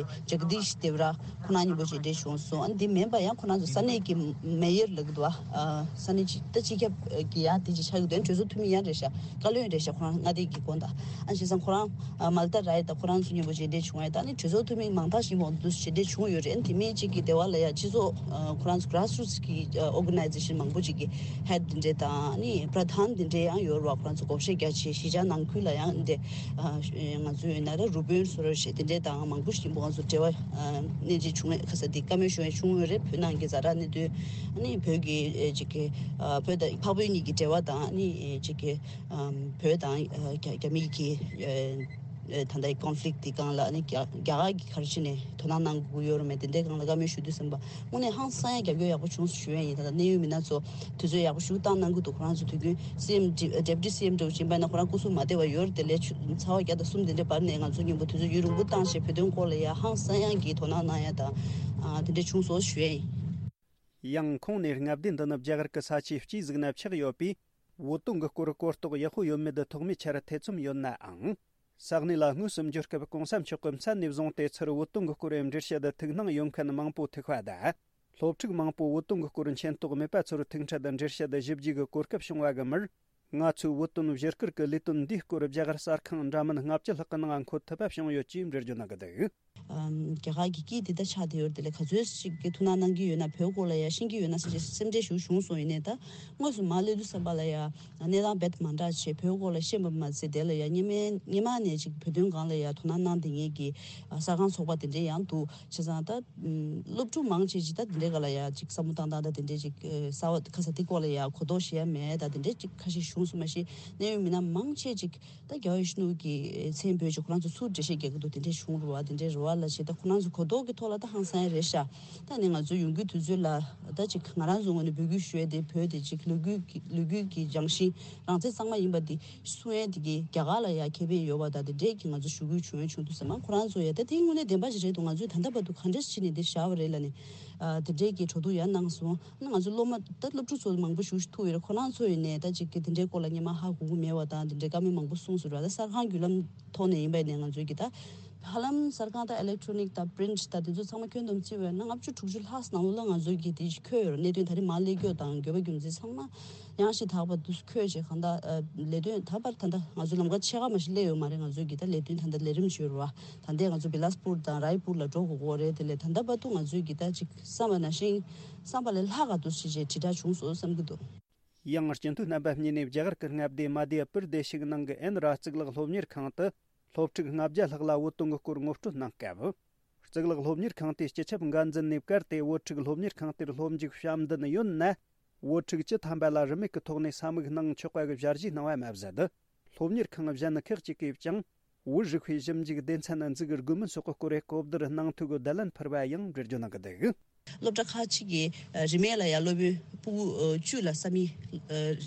ཇག་དིཤ་དེབ་ར་ཁོ་རང་མཉམ་པོ་མཇལ་འཕྲད་བྱུང་སོང་། ཨ་ནི་དེ་མིན་པ་ཡང་ཁོ་རང་ཚོ་ས་གནས་ཀྱི་མེ་ཡར་ལབ་ཀྱི་འདུག་བ། ཨ། ས་གནས་ཅིག་ད་སྤྱི་ཁྱབ་ཀྱི་ཡང་དེ་ཅིག་ཆགས་ཀྱི་འདུག་གྲོས་ཚོགས་འཐུས་མི་ཡང་རེད་ཤག་བཀའ་བློན་རེད་ཤག་ཁོ་རང་མངའ་སྡེ་གི་དགོན་དང་། ཨ་བྱས་ཙང་ཁོ་རང་མལ་ཏ་རའི་དང་ཁོ་རང་ཚོ་མཉམ་པོ་མཇལ་འཕྲད་བྱུང་བས། ད་ནི་གྲོས་ཚོགས་འཐུས་མི་མང་དག་ཞིག་མང་དུ་མཇལ་འཕྲད་བྱུང་ཡོད་རེད། དེ་མིན་གཅིག་གི་སྡེ་བ་ལ་ཡང་སྤྱི་ཚོགས་ཁོ་རང་ཚོ་གྷ་རཱས་རུ་ཊི་གི་ཨོ་གྷ་ནའི་ཛེ་ཤན་མང་པོ་ཅིག་གི་ཧེཌ་དེ་འདྲས་དང་ནི་པྲ་དྷཱན་དེ་འདྲས་ཡང་ཡོད་རེད་བ། ཁོ་རང་ཚོ་བགོ་བཤའ་རྒྱ་ཆེ་གཞིས་ཆགས་ནང་ཁུལ་ལ་ཡང་འདི་ང་ཚོ་ཡོད་ན་ར་རུ་དཔོན་སོ་ར་ཞེས་དེ་འདྲས་དང་མང་པོ་ཞིག་ཁོ་རང་ཚོ་འབྲེལ་བ་གནས་ཚུལ་བྱུང་བས། ཁ་ས་འདི་བཀའ་མོལ་ཞུ་ཡ་བྱུང་ཡོད་རེད། བོད་ནང་གི་ཛ་དྲག་གནད་དོན་ནི་བོད་ཀྱི་ཅིག་གི་བོད་དང་འཕགས་བོད་གཉིས་ཀྱི་འབྲེལ་བ་དང་ནི་ཅིག་གི་བོད་དང་རྒྱ་རྒྱ་མི་གི་ད་ལྟའི་ཀོན་ཕི་ལིག་དེ་སྒང་ལ་ནི་རྒྱ་རྒྱ་གར་གྱི་ག་རེ་བྱས་ནས་དོ་སྣང་གནང་དགོས་ཀྱི་ཡོད་རེད་མེད་དེ་འདྲའི་སྒང་ལ་བཀའ་མོལ་ཞུ་དུས་ཙམ་པ་དངོས་གནས་ཧང་སང་ཡ་རྒྱབ་སྐྱོར་ཡག་པོ་བྱུང་སོང་ཞུ་ཡ་ཡིན། ད་ལྟ་གནད་ཡོད་མི་སྣ་ཚོ་དུས་ཚོད་ཡག་པོ་ཞིག་བཏང་གནང་གི་འདུག་ཁོ་རང་ཚོ་དུས་རྒྱུན་སི་ཨེམ་ཌེ་པུ་ཊི་སི་ཨེམ་འདྲ་བོ་ཅིག་ཡིན་པ་ན་ཁོ་རང་སྐུ་གཟུགས་མ་བདེ་བ་ཡོད་རེད་དེ་ལས་ཚ་བ་བརྒྱ་དང་གསུམ་དེ་འདྲའི་བར་ནས་ང་ཚོ་མཉམ་པོ་དུས་ཚོད་ཡུན་རིང་པོ་བཏང་བྱས་བོད་དོན་སྐོར་ལ་ཡ་ཧང་སང་ཡ་གི་དོ་སྣང་གནང་ཡ་དང་དེ་འདྲ་བྱུང་སོང་ཞུ་ཡ་ཡིན། ཡང་ཁོང་ནས་མངའ་སྡེ་འདི་ནི་རྒྱ་གར་གྱི་ས་ཆའི་དཔྱིད་གཟུགས་ན་ཆགས་ཡོད་པས། བོད་དོན་གྱི་སྐོར་གོ་རྟོགས་ཡག་པོ་ཡོད་མེད་ཐོག་མའི་ཆར་ཐེ་ཚོམ་ཡོད་ནའང་། ས་གནས་ལ་དངོས་སུ་འབྱོར་སྐབས་གོང་ས་མཆོག་གིས་མཚན་ནས་བཟུང་སྟེ་ཚུར་བོད་དོན་གྱི་སྐོར་འགྲེལ་བཤད་ཐུགས་སྣང་ཡོད་མཁན་མང་པོ་ཐུག་པ་དང་། སློབ་ཕྲུག་མང་པོ་བོད་དོན་གྱི་སྐོར་མཁྱེན་རྟོགས་མེད་པ་ཚོར་ཐུག་འཕྲད་འགྲེལ་བཤད་ཞིབ་རྒྱས་ཀྱི་གོ་སྐབས་བྱུང་བ་གི་མིར། ང་ཚོས་བོད་དོན་བཞུགས་སྒར་གྱི་ལས་དོན་འདིའི་སྐོར་རྒྱ་གར་གསར་ཁང་འདྲ་མིན་ལྔ་བཅུ་ལྷག་གི་ནང་འཁོད་ཐུབ་པ་བྱུང་ཡོད་ཅེས་འགྲེལ་བརྗོད་གནང་གི་འདུག། ཨམ། རྒྱ་གར་གྱི་སྐད་འདི་ལྟར་ཆགས་བསྡད་ཡོད་རེད། དེ་ལས་ག་ཚོད་ཅིག་གིས་ཐུགས་སྣང་གནང་གི་ཡོད་ན། བོད་སྐོར་ལ་ཡང་ཤེས་ཀྱི་ཡོད་ན་ཟེར་བྱས་སེམས་ཁྲལ་ཞིག་བྱུང་སོང་། ཡིན་ནའི་ད་དངོས་སུ་མར་སླེབས་དུས་ཙམ་པ་ལ་ཡང་གནས་སྟངས་རྦད་དེ་མ་འདྲ་བྱས། བོད་སྐོར་ལ་ཤེས་པ་མ་ཟད། དེ་ལ་ཡང་སྔོན་མའི་སྔོན་མ་ནས་ཅིག་བོད་དོན་སྒང་ལ་ཡང་དོ་སྣང་གནང་བསྡད་མཁན་གྱི་གསར་ཁང་ཚོགས་པ་དེ་འདྲས་ཡང་འདུག། བྱས་ཙང་ད་སློབ་ཕྲུག་མང་ཆེ་ཅིག་ད་དེ་འདྲའི་སྒང་ལ་ཡང་ཅིག་བསམ་བློ་བཏང་སྟངས་ད་དེ་འདྲས་ཅིག་གསར་བ་ཁ་ས་དེ་སྐོར་ལ་ཡང་གོ་རྟོགས་ཞེ་དྲག་མེད། ད་དེ་འདྲས་ཅིག་ཁ་ཤས་བྱུང་སོང་མ་གཞི། གནད་ཡོད་མི་སྣ་མང་ཆེ་ཅིག་ད་རྒྱལ་བ་ཡིད་བཞིན་ནོར་བུ་གི་མཚན་འབོད་ཅིག་ཁོ་རང་ཚོ་ཚུར་འགྲེལ་བཤད་རྒྱག་གི་འདུག། དེ་འདྲས་བྱུང་རུང་བ། དེ་འདྲས་རེད་བ་ལབ་བྱས། ད་ཁོ་རང་ཚོ་གོ་རྟོགས་ཀྱི་ཐོག་ལ་ད་ཧང་སང་ཡ་རེད་ཤག། ད་ནི་ང་ཚོ་ཡོང་རྒྱུའི་དུས་ཚོད་ལ་ད་ཅིག་ང་རང་ཚོ་ངོས་ནས་འབོད་སྐུལ་ཞུ་ཡ་དེ། བོད་དེ་ཅིག་ལོ་རྒྱུས་ཀྱི་ལོ་རྒྱུས་ཀྱི་རྒྱང་ཤིང་རང་བཙན་གཙང་མ་ཡིན་པ་དེ་གསུང་ཡ་དེ་གི་རྒྱ་གར་ལ་ཡ་ཁེ་ཕན་ཡོད་པ་དང་། དེ་འདྲས་ཀྱི་ང་ཚོ་ཞུ་སྐུལ་བྱུང་ཡ་བྱུང་དུས་ཙམ་པ། ཁོ་རང་ཚོ་ཡ་ད་དེ་དངོས་གནས་བདེན་པ་ཞིག་རེད་འདུག། ང་ཚོས་ད་ལྟ་བར་དུ་ག་འདྲས་བྱས་ནས་འདི་བཞག་པ་རེད་ལབ་ནས། ཨ། དེ་འདྲས་ཀྱི་གྲོས་བསྡུར་ཡང་གནང་སོང་། ང་ཚོ་སློབ་མ་ད་སློབ་ཕྲུག་ཚོ་མང་པོ་ཞིག་ཐུག་ཡོད་རེད། ཁོ་རང་ཚོ་ཡིན་ནའི་ད་ཅིག་གི་དེ་འདྲའི་སྐོར་ལ་སྔོན་མ་ཧ་གོ་གི་མེད་པ་དང་། དེ་འདྲའི་བཀའ་མོལ་མང་པོ་གསུངས་སོང་ར། ད་གསར་ཁང་བརྒྱུད་ལམ་ཐོག་ནས་ཡིན་པ་ཡིན་ནའི་ང་ཚོའི་གི་ད་ཧ་ལམ་གསར་ཁང་ད་ཨི་ལེག་ཊོ་ནིག་དང་པི་རིན་ཊི་ད་དེ་ཚོ་ཚང་མ་ཁྱོན་བསྡོམས་བརྩིས་པ་ཡིན་ན་ལྔ་བཅུ་དྲུག་ཅུ་ལྷག་ནང་ལོགས་ལ་ང་ཚོའི་གི་དེ་ཅིག་འཁོད་ཡོད་རེད། གནད་དོན་ད་རེས་མར་སླེབས་རྒྱུ་དང་དགོས་པ་རྒྱུ་མཚན་ཚང་མ་ཡང་ཞིག་དག་པ་དུ་འཁོད་བྱས། གང་ལྟར་ཨ་ལས་དོན་ད་བར་ད་ལྟ་ང་ཚོ་ལམ་ཁ་ཕྱེད་ཀ་མ་ཞིག་སླེབས་ཡོད་མ་རེད། ང་ཚོའི་གི་ད་ལས་དོན་ད་ལྟ་ལས་རིམ་ཅིག་ཡོད་རེད་བ། ད་ལྟའི་ང་ཚོ་བི་ལཱ་སི་པུར་དང་རའི་པུར་ལ་འགྲོ་དགོས་ཀྱི་རེད། དེ་ལས་ད་ལྟ་བར་དུ་ང་ཚོའི་གི་ད་ཅིག་བསམ་པ་ནང་བཞིན་བསམ་པ་ལས་ལྷག་ག་འདུག་ཞེས་བྱས་དྲིལ་བསྒྲགས་བྱུང་སོང་བསམ་གྱི་འདུག། ཡང་སྤྱི་འཐུས་རྣམ་པ་གཉིས་ནས་རྒྱ་གར་གྱི་མངའ་སྡེ་མ་དྷྱ་པུར་དེ་ཤིག་ནང་གི་ཨེན་ར་གཙུག་ལག་སློབ་གཉེར་ཁང་དུ་སློབ་ཕྲུག་ལྔ་བརྒྱ་ལྷག་ལ་བོད་དོན་གྱི་སྐོར་ངོ་སྤྲོད་གནང་སྐབས། གཙུག་ལག་སློབ་གཉེར་ཁང་དེའི་སྤྱི་ཁྱབ་འགན་འཛིན་ནས་བཀར་ཏེ། བོད་ཕྲུག་སློབ་གཉེར་ཁང་དེར་སློབ་མཇུག་བྱམས་ལྡན་ཡོད་ན། བོད་ཕྲུག་བཅུ་ཐམ་པ་ལ་རིན་མེད་ཀྱི་ཐོག་ནས་ས་མིག་གནང་ཆོག་པ་གི་ཞལ་བཞེས་གནང་བ་མ་ཟད། སློབ་གཉེར་ཁང་གཞན་ཁག་ཅིག་གིས་ཀྱང་བོད་རིག་པའི་ཞིབ་འཇུག་སྡེ་ཚན་འཛུགས་དགོས་མིན་སོགས་ཀྱི་སྐོར་གོ་བསྡུར་གནང་ཐུབ་པའི་བརྡ་ལན་ཕུལ་བ་ཡང་འགྲེལ་བརྗོད་གནང་གི་འདུག། སློབ་གྲྭ་ཁག་ཅིག་གིས་རིན་མེད་ལ་ཡང་སློབ་དཔོན་ཕྲུ་གུ་བཅུ་ལ་ས་མིག་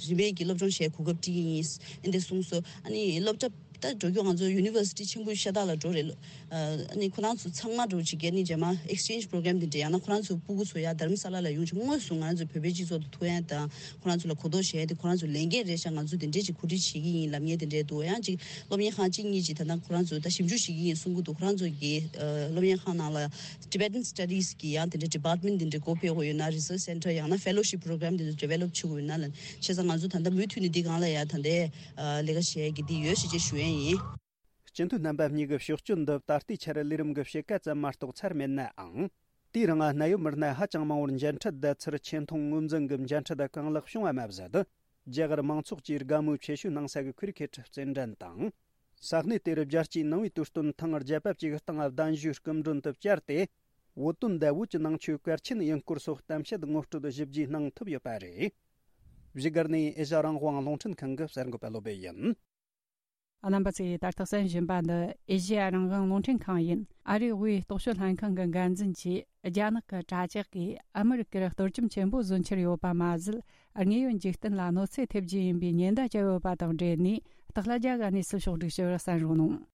རིན་མེད་ཀྱི་སློབ་སྦྱོང་བྱེད་གོ་སྐབས་སྤྲད་ཀྱི་ཡིན་འདི་འདྲ་གསུངས་སོང་། ཨ་ནི་སློབ་གྲྭ་ད་འགྲོ་རྒྱུ་ང་ཚོ་ཡུ་ནི་ཝར་སི་ཊི་ཆེན་པོ་ཤ་སྟག་ལ་འགྲོ་རེད། ཨ་ནི་ཁོ་རང་ཚོ་ཚང་མ་འགྲོ་བྱེད་ཀྱི་ཨ་ནི་རྗེས་མ་ཨེག་སི་ཆེན་ཇི་པོ་རོ་གྷ་རམ་འདི་འདྲ། ཡང་ན་ཁོ་རང་ཚོའི་ཕྲུ་གུ་ཚོ་ཡང་དྷ་རམ་ས་ལ་ལ་ཡོང་བྱས་དངོས་སུ་ང་རང་ཚོའི་བོད་པའི་སྤྱི་ཚོགས་དང་ཐུག་ཡ་དང་། ཁོ་རང་ཚོ་ལ་གོ་རྟོགས་བྱེད་ཡ་དེ་ཁོ་རང་ཚོའི་ལས་འགན་རེད་ཤག། ང་ཚོ་དེ་འདྲས་ཅིག་གོ་སྒྲིག་བྱེད་ཀྱི་ཡིན་ལབ་མཁན་དེ་འདྲས་འདུག། ཡང་ཅིག་སློབ་གཉེར་ཁང་གཅིག་གཉིས་ཅིག་ད་ལྟ་ཁོ་རང་ཚོ་ད་ཞིབ་འཇུག་བྱེད་ཀྱི་ཡིན་གསུང་གི་འདུག། ཁོ་རང་ཚོ་གི་ཨ་སློབ་གཉེར་ཁང་ནང་ལ་Tibetan Studies གི་ཡང་དེ་འདྲའི་department དེ་འདྲའི་སྒོ་ཕྱེ་དགོས་ཡོད་ན། research center ཡང་ན་fellowship program དེ་ཚོ་develop བྱེད་དགོས་ཡོད་ན་ལབ། བྱས་ཙང་ང་ཚོ་ད་ལྟ་མུ་མཐུད་ནས་འདི་སྒང་ལ་ཡང་ད་ལྟའི་ཨ་ལས་ཀ་བྱེད་ཡ་གི་འདི་ཡོད་ཞེས་བྱས་ཞུ་ཡ་ཡིན། སྤྱི་འཐུས་རྣམ་པ་གཉིས་ཀྱི་ཕྱོགས་སྐྱོད་འདི་ད་ལྟའི་ཆར་ལས་རིམ་གྱི་ཕྱེད་ཀ་ཙམ་མ་གཏོགས་ཚར་མེད་ནའང་། དེའི་རིང་གནད་ཡོད་མི་སྣ་ཧ་ཅང་མང་བོར་མཇལ་འཕྲད་བསྡད་ཚུལ་ཆེ་མཐོང་ངོས་འཛིན་གྱི་མཇལ་འཕྲད་གང་ལེགས་བྱུང་བ་མ་ཟད། རྒྱ་གར་མང་ཚོགས་ཀྱིས་དགའ་མོས་ཆེ་ཤོས་གནང་ས་གི་ཁུ་རི་ཁེ་ཊི་རྩེད་འགྲན་དང་། ས་གནས་དེར་རྒྱལ་སྤྱིའི་ནང་པའི་དུས་སྟོན་ཐེངས་བརྒྱད་པ་བཅས་ཀྱི་སྟེང་གདན་ཞུའི་སྐུ་མགྲོན་དུ་བཅར་ཏེ། བོད་དོན་དང་བོད་ཀྱི་ནང་ཆོས་གལ་ཆེན་ཡིན་སྐོར་སོགས་གཏམ་བཤད་ངོ་སྤྲོད་ཞིབ་རྒྱས་གནང་ཐུབ་ཡོད་པ་རེད། བཞུགས་སྒར་ནས་ཨེ་ཤ་རང་དབང་རླུང་འཕྲིན་ཁང་གི་གསར་འགོད་པ་བློ་བྷེ་ཡིན། རྣམ་པ་ཚོས་ད་ལྟ་གསན་བཞིན་པ་འདི་ཨེ་ཤེ་ཡ་རང་དབང་རླུང་འཕྲིན་ཁང་ཡིན། ཨ་རིའི་དབུས་རྟོག་དཔྱོད་ལྷན་ཁང་གི་འགན་འཛིན་གྱིས་རྒྱ་ནག་གི་དྲ་ཇག་གིས་ཨ་མི་རི་ཀར་གཏོར་བཅོམ་ཆེན་པོ་བཟོ་འཆར་ཡོད་པ་མ་ཟད། དངོས་ཡོད་འཇིག་རྟེན་ལ་གནོད་འཚེ་ཐེབས་རྒྱུ་ཡིན་པའི་ཉེན་བརྡ་བརྒྱབ་ཡོད་པ་དང་འབྲེལ་ནས། སྟག་ལྷ་རྒྱ་གར་ནས་སུ་ཕྱོགས་སྒྲིག་ཞུ་བར་གསན་རོགས་གནང་།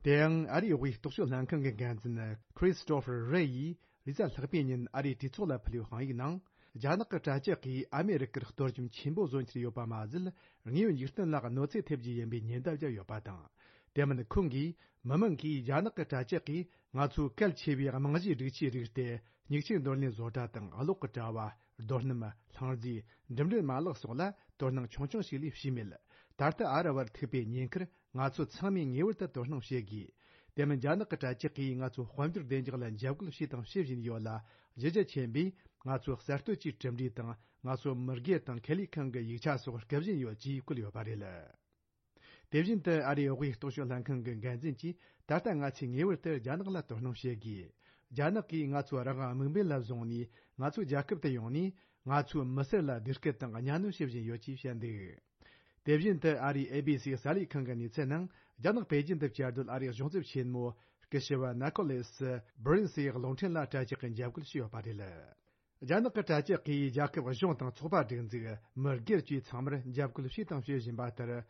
དེ་ཡང་ཨ་རིའི་དབུས་རྟོག་དཔྱོད་ལྷན་ཁང་གི་འགན་འཛིན་Christopher Wray ཡིས་རེས་གཟའ་ལྷག་པའི་ཉིན་ཨ་རིའི་གྲོས་ཚོགས་ལ་ཕུལ་བའི་དཔང་ཡིག་ནང་། རྒྱ་ནག་གི་དྲ་ཇག་གིས་ཨ་མེ་རི་ཀར་གཏོར་བཅོམ་ཆེན་པོ་བཟོ་འཆར་ཡོད་པ་མ་ཟད། དངོས་ཡོད་འཇིག་རྟེན་ལ་གནོད་འཚེ་ཐེབས་རྒྱུ་ཡིན་པའི་ཉེན་བརྡ་བརྒྱབ་ཡོད་པ་དང་། དེ་མིན་ཁོང་གིས་མི་མང་གིས་རྒྱ་ནག་གི་དྲ་ཇག་གིས་ང་ཚོའི་གལ་ཆེ་བའི་རྨང་གཞིའི་སྒྲིག་ཆས་རིགས་ཏེ། མྱིག་ཆུའི་འདོར་ལེན་བཟོ་གྲྭ་དང་གློག་གི་དྲ་བ། རྡོ་སྣུམ། ལྷང་རྫས། འགྲིམ་འགྲུལ་མ་ལག་སོགས་ལ་དོ་སྣང་ཆུང་ཆུང་ཞིག་ལས་བྱས་མེད། ད་ལྟ་ཨ་ར་བར་ཐུག་པའི་ཉེན་ཁར་ང་ཚོ་ཚང་མས་ངེས་པར་དུ་དོ་སྣང་བྱེད་དགོས། དེ་མིན་རྒྱ་ནག་གི་དྲ་ཇག་གིས་ང་ཚོ་དཔལ་འབྱོར་བདེ་འཇགས་ལ་འཇབ་རྒོལ་བྱས་དང་བྱེད་བཞིན་ཡོད་ལ། གཞི་རྒྱ་ཆེན་པོས་ང་ཚོ་གསར་གཏོད་ཀྱི་གྲུབ་འབྲས་དང་ང་ཚོ་མི་སྒེར་དང་ཁེ་ལས་ཁང་གི་ཡིག་ཆ་སོགས་རྐུ་བཞིན་ཡོད་ཅེས་བཀོད་ཡོད་པ་རེད། དེ་བཞིན་དུ་ཨ་རིའི་དབུས་རྟོག་དཔྱོད་ལྷན་ཁང་གི་འགན་འཛིན་གྱིས་ད་ལྟ་ང་ཚོས་ངེས་པར་དུ་རྒྱ་ནག་ལ་དོ་སྣང་བྱེད་དགོས། རྒྱ་ནག་གིས་ང་ཚོ་རང་དབང་དམིགས་འབེན་ལ་བཟུང་ནས་ང་ཚོའི་རྒྱལ་ཁབ་ཏུ་ཡོང་ནས་ང་ཚོའི་མི་སེར་ལ་བདེ་སྐྱིད་དང་གཉའ་གནོན་བྱེད་བཞིན་ཡོད་ཅེས་བཤད་འདུག། དེ་བཞིན་དུ་ཨ་རིའི་ཨེ་བི་སི་གསར་ལས་ཁང་གི་གནས་ཚུལ་ནང་། རྒྱ་ནག་པེ་ཅིན་དུ་བཅའ་སྡོད་ཨ་རིའི་གཞུང་ཚབ་ཆེན་མོ་སྐུ་ཞབས་ནི་ཀོ་ལེ་སི་སྦི་རིན་སི་ཡི་གློག་འཕྲིན་ལ་དྲ་ཇག་གིས་འཇབ་རྒོལ་བྱས་ཡོད་པ་རེད། རྒྱ་ནག་གི་དྲ་ཇག་གིས་རྒྱལ་ཁབ་གཞུང་དང་ཚོགས་པ་སྒྲིག་འཛུགས། མི་སྒེར་བཅས་ཚང་མར་འཇབ་རྒོལ་བྱས་དང་བྱེད་བཞིན་པ་ལྟར།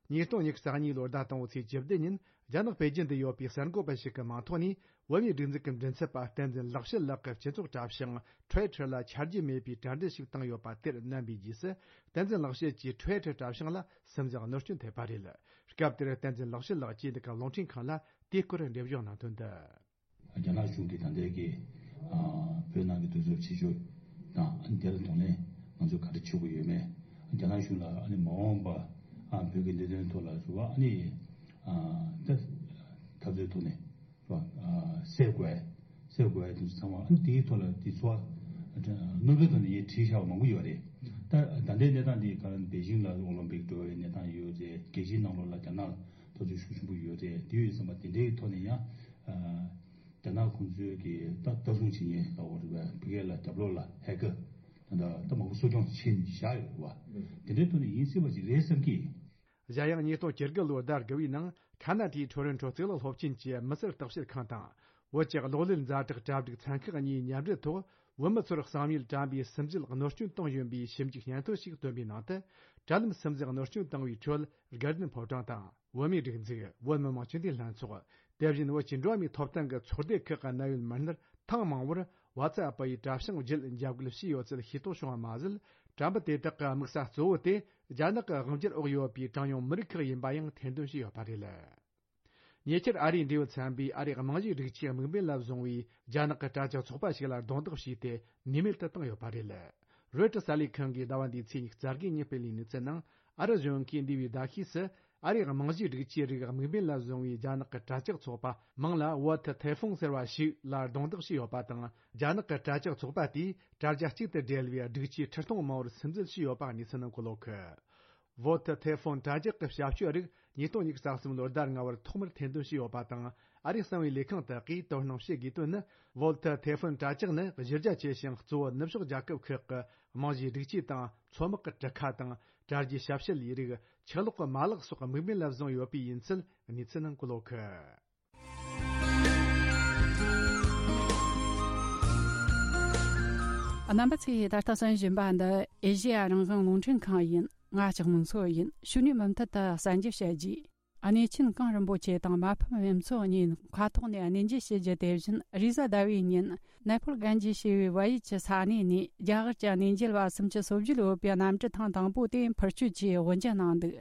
ཉིས་སྟོང་ཉི་ཤུ་རྩ་གཉིས་ལོའི་ཟླ་དང་པོའི་ཚེས་བཅུ་བདུན་ཉིན། རྒྱ་ནག་པེ་ཅིན་དུ་ཡོད་པའི་གསར་འགོད་པ་ཞིག་གི་མིང་ཐོག་ནས། བོད་མིའི་སྒྲིག་འཛུགས་ཀྱི་མགྲིན་ཚབ་པ་བསྟན་འཛིན་ལེགས་བཤད་ལགས་ཀྱི་སྤྱི་ཚོགས་དྲ་བྱང་Twitter ལ་ཆ་རྒྱུས་མེད་པའི་དྲ་འབྲེལ་ཞིག་བཏང་ཡོད་པ་དེར་མནན་པའི་རྗེས་སུ། བསྟན་འཛིན་ལེགས་བཤད་ཀྱི་Twitter དྲ་བྱང་ལ་སིམ་འཛུལ་གནོད་སྐྱོན་ཐེབས་པ་རེད། སྐབས་དེར་བསྟན་འཛིན་ལེགས་བཤད་ལགས་ཀྱིས་འདི་ག་རླུང་འཕྲིན་ཁང་ལ་དེའི་སྐོར་འགྲེལ་བརྗོད་གནང་དོན་འདི། རྒྱ་ནག་གཞུང་གིས་ད་ལྟའི་གི་ཨ་བོད་ནང་གི་དུས་ཚོད་ཕྱི་ཕྱོགས་དང་ཨ་ནི་དེ་ལ་གདོང་ལེན་ང་ཚོས་ག་རེ་བྱེད་དགོས་ཡོད་མེད། རྒྱ་ནག་གཞུང་ལ་ཨ་ནི་མ་འོངས་པ་ གི་འདི་དོན་ཐོག་ལ་རེད་བ། ཨ་ནི་ཨ་ད་འཐབ་རྩོད་ཐོག་ནས་རེད་བ། ཨ་སེལ་དགོས་སེལ་དགོས་དེ་ཚོ་ཚང་མ། ཨ་ནི་དེའི་ཐོག་ལ་དེ་ཚོ་ནོར་བུའི་ཐོག་ནས་ངས་བྲིས་བཞག་པ་མང་པོ་ཡོད་རེད། ད་ད་ལྟའི་གནས་སྟངས་འདི་ག་རེ་པེ་ཅིང་ལ་ཨོ་ལིམ་པིག་འགྲོ་བའི་གནས་སྟངས་ཡོད་རེད། རྒྱལ་སྤྱིའི་ནང་ལོགས་ལ་རྒྱ་ནག་འཐབ་རྩོད་ཤུགས་ཆེན་པོ་ཡོད་རེད། དེ་ཡོད་ཙམ་པ་དེ་འདྲའི་ཐོག་ནས་ཡང་ཨ་རྒྱ་ནག་ཁོང་ཚོའི་གི་ད་ལྟ་སྲུང་བྱེད་མཁན་ལ་འོ་རེད་བ། ཕ་གི་ལ་རྒྱབ་ལོགས་ལ་ཧེ་ཀར་ད་ད་མང་པོ་གསོ་སྐྱོང་བྱེད་བཞག་ཡོད་རེད་བ། དེ་འདྲའི་ཐོག་ནས་ཡིན་སྲིད་པ་ཅིག་རེད་བསམ་གི། གཞན་ཡང་ཉིས་སྟོང་བཅུ་དགུ་ལོའི་ཟླ་དགུ་པའི་ནང་ཁ་ན་ཌའི་ཊོ་རོན་ཊོ་གཙུག་ལག་སློབ་ཆེན་གྱི་མི་སེར་བརྟག་དཔྱད་ཁང་དང་བོད་ཀྱི་གློག་ཀླད་ཛ་དྲག་གྲ་སྒྲིག་ཚན་ཁག་གཉིས་མཉམ་འབྲེལ་ཐོག་བོད་མི་ཚོར་གསང་ཉུལ་དྲ་འབུའི་སིམ་འཛུལ་གནོད་སྐྱོན་བཏང་བཞིན་པའི་ཞིབ་འཇུག་སྙན་ཐོ་ཞིག་བཏོན་པའི་ནང་དུ། དྲ་ལམ་སིམ་འཛུལ་གནོད་སྐྱོན་བཏང་བའི་ཁྲོད་དགའ་ལྡན་ཕོ་བྲང་དང་བོད་མིའི་སྒྲིག་འཛུགས། བོད་མི་མང་སྤྱི་འཐུས་ལྷན་ཚོགས། དེ་བཞིན་བོད་ཀྱི་འགྲོ་བ་མིའི་ཐོབ་ཐང་གི་ཚོགས་སྡེ་ཁག་གི་གནད་ཡོད་མི་སྣར་ཐེངས་མང་བོར་ཝ་ཚ་ཨེབ་ཡི་དྲ་བྱང་བརྒྱུད་འཇབ་རྒོལ་བྱས་ཡོད་ཚུལ་ཤེས་རྟོགས་བྱུང་བ་མ་ཟད། དྲ་འབུ་དེ་དག་གི་དམིགས་ས་གཙོ་བོ་དེ་རྒྱ་ནག་གི་དབང་སྒྱུར་འོག་ཡོད་པའི་གྲངས་ཉུང་མི་རིགས་ཁག་ཡིན་པ་ཡང་ཐེར་འདོན་བྱས་ཡོད་པ་རེད། ཉེ་ཆར་ཨ་རིའི་འབྲེལ་ཡོད་ཚན་པས་ཨ་རིའི་རྨང་གཞིའི་སྒྲིག་ཆས་དམིགས་འབེན་ལ་བཟུང་བའི་རྒྱ་ནག་གི་དྲ་ཇག་ཚོགས་པ་ཞིག་ལ་རྡུང་རྡེག་བྱས་ཏེ་ནུས་མེད་དུ་བཏང་ཡོད་པ་རེད། རོའི་ཊར་གསར་ལས་ཁང་གིས་ཟླ་བ་འདིའི་ཚེས་ཉི་ཤུ་རྩ་དགུ་ཉིན་སྤེལ་བའི་གནས་ཚུལ་ནང་། ཨ་རི་གཞུང་གིས་འདས་པའི་ཟླ་ཤས་སུ་ཨ་རིའི་རྨང་གཞིའི་སྒྲིག་ཆས་རིགས་དམིགས་འབེན་ལ་བཟུང་བའི་རྒྱ་ནག་གི་དྲ་ཇག་ཚོགས་པ་མིང་ལ་ཝོ་ཐི་ཐེ་ཧྥུང་ཟེར་བ་ཞིག་ལ་རྡུང་རྡེག་བྱས་ཡོད་པ་དང་། རྒྱ་ནག་གི་དྲ་ཇག་ཚོགས་པ་དེས་དྲ་རྒྱ་གཅིག་ཏུ་སྦྲེལ་བའི་སྒྲིག་ཆས་ཁྲི་སྟོང་མང་བོར་སིམ་འཛུལ་བྱས་ཡོད་པ་གནས་ཚུལ་ནང་འཁོད་ཡོད་གི། ཝོ་ཐི་ཐེ་ཧྥུན་དྲ་ཇག་གི་ཞབས་ཞུ་རིགས་ཉིས་སྟོང་ཉི་ཤུ་རྩ་གསུམ་ལོའི་ཟླ་ལྔ་པར་ཐོག་མར་ཐེར་འདོན་བྱས་ཡོད་པ་དང་། ཨ་རིའི་གསང་བའི་ལས་ཁང་དག་གིས་དོ་སྣང་བྱེད་དགོས་དོན་ནི། ཝོལ་ཐི་ཐེ་ཧྥུན་དྲ་ཇག་ནི་གཞི་རྒྱ་ཆེ་ཞིང་གཙོ་བོ་ནུབ་ཕྱོགས་རྒྱལ་ཁབ་ཁག་གི་རྨང་གཞིའི་སྒྲིག་ཆས་དང་། མཚོ་དམག་གི་གྲུ་ཁ་དང་། དྲ་རྒྱའི་ཞབས་ཞུ་ལས་རིགས། ཆུ་གློག་གི་མ་ལག་སོགས་དམིགས་འབེན་ལ་བཟུང་ཡོད་པའི་ཡིན་ཚུལ་གནས་ཚུལ་ནང་འཁོད་ཡོད་གི། རྣམ་པ་ཚོས་ད་ལྟ་གསན་བཞིན་པ་འདི་ཨེ་ཤེ་ཡ་རང་དབང་རླུང་འཕྲིན་ཁང་ཡིན། ང་ལྕགས་མོ་མཚོ་ཡིན། ཕྱི་ནས་མུ་མཐུད་དུ་གསན་རྒྱུ་བྱ་རྒྱུ། གནས་ཆེན་གངས་རིན་པོ་ཆེ་དང་མ་ཕམ་བུ་མཚོ་གཉིས་མཁའ་ཐོག་ནས་གནས་མཇལ་བྱེད་རྒྱུ། དེ་བཞིན་རེས་གཟའ་ཟླ་བའི་ཉིན་ནེ་པོལ་གན་ཇི་ཞེས་པའི་བལ་ཡུལ་གྱི་ས་གནས་ནས་རྒྱ་གར་གྱི་གནས་མཇལ་བ་སུམ་ཅུ་སོ་བརྒྱད་ཡོད་པའི་གནམ་གྲུ་ཐེངས་དང་པོ་དེ་འཕུར་སྐྱོད་ཀྱིས་དབུ་འབྱེད་གནང་འདུག་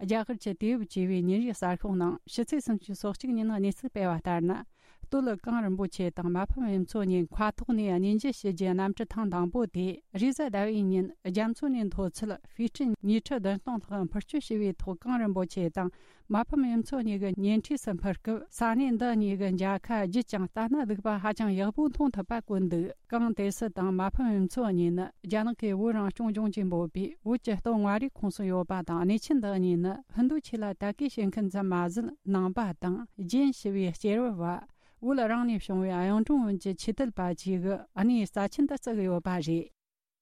རྒྱ་གར་གྱི་དུས་བབ་ཅེས་པའི་ཉིན་རེའི་གསར་ཤོག་ནང་ཕྱི་ཚེས་སུམ་ཅུ་སོ་གཅིག་ཉིན་གནས་ཚུལ་སྤེལ་བ་ལྟར་ན། སྟོད་གངས་རིན་པོ་ཆེ་དང་མ་ཕམ་བུ་མཚོ་གཉིས་མཁའ་ཐོག་ནས་གནས་མཇལ་བྱེད་རྒྱུའི་གནམ་གྲུ་ཐེངས་དང་པོ་དེ་རེས་གཟའ་ཟླ་བའི་ཉིན་རྒྱ་མཚོ་ནས་མཐོ་ཚད་ཧྥི་ཊི་ཉིས་ཁྲི་བདུན་སྟོང་ལྷག་འཕུར་སྐྱོད་བྱས་པའི་ཐོག་གངས་རིན་པོ་ཆེ་དང་མ་ཕམ་བུ་མཚོ་གཉིས་ཀྱི་ཉེ་འཁྲིས་སུ་འཕུར་སྐབས། ས་གནས་འདི་གཉིས་ཀྱི་མཇལ་ཁ་བརྒྱུད་ཅིང་ལྟ་ན་སྡུག་པ་ཧ་ཅང་ཡག་པོ་མཐོང་ཐུབ་པ་བཀོད་འདུག་གངས་ཏོག་ཙི་དང་མ་ཕམ་བུ་མཚོ་གཉིས་ནི་རྒྱ་ནག་གི་བོད་རང་སྐྱོང་ལྗོངས་ཀྱིས་འབོད་པའི་བོད་ཀྱི་སྟོད་མངའ་རིས་ཁོངས་སུ་ཡོད་པ་དང་། གནས་ཆེན་འདི་གཉིས་ནི་ཧིན་རྡུ་ཆོས་ལ་དད་གུས་བྱེད་མཁན་ཙམ་མ་ཟད། ནང་པ་དང་རྒྱན་ཞེས་པའི་སྐྱེས་བུ་བ་བོད་རང་ནས་བྱུང་བའི་གཡུང་དྲུང་བོན་གྱི་ཆོས་དད་པ་བཅས་ཀྱིས་གནས་རྩ་ཆེན་དུ་བརྩི་གི་ཡོད་པ་རེད།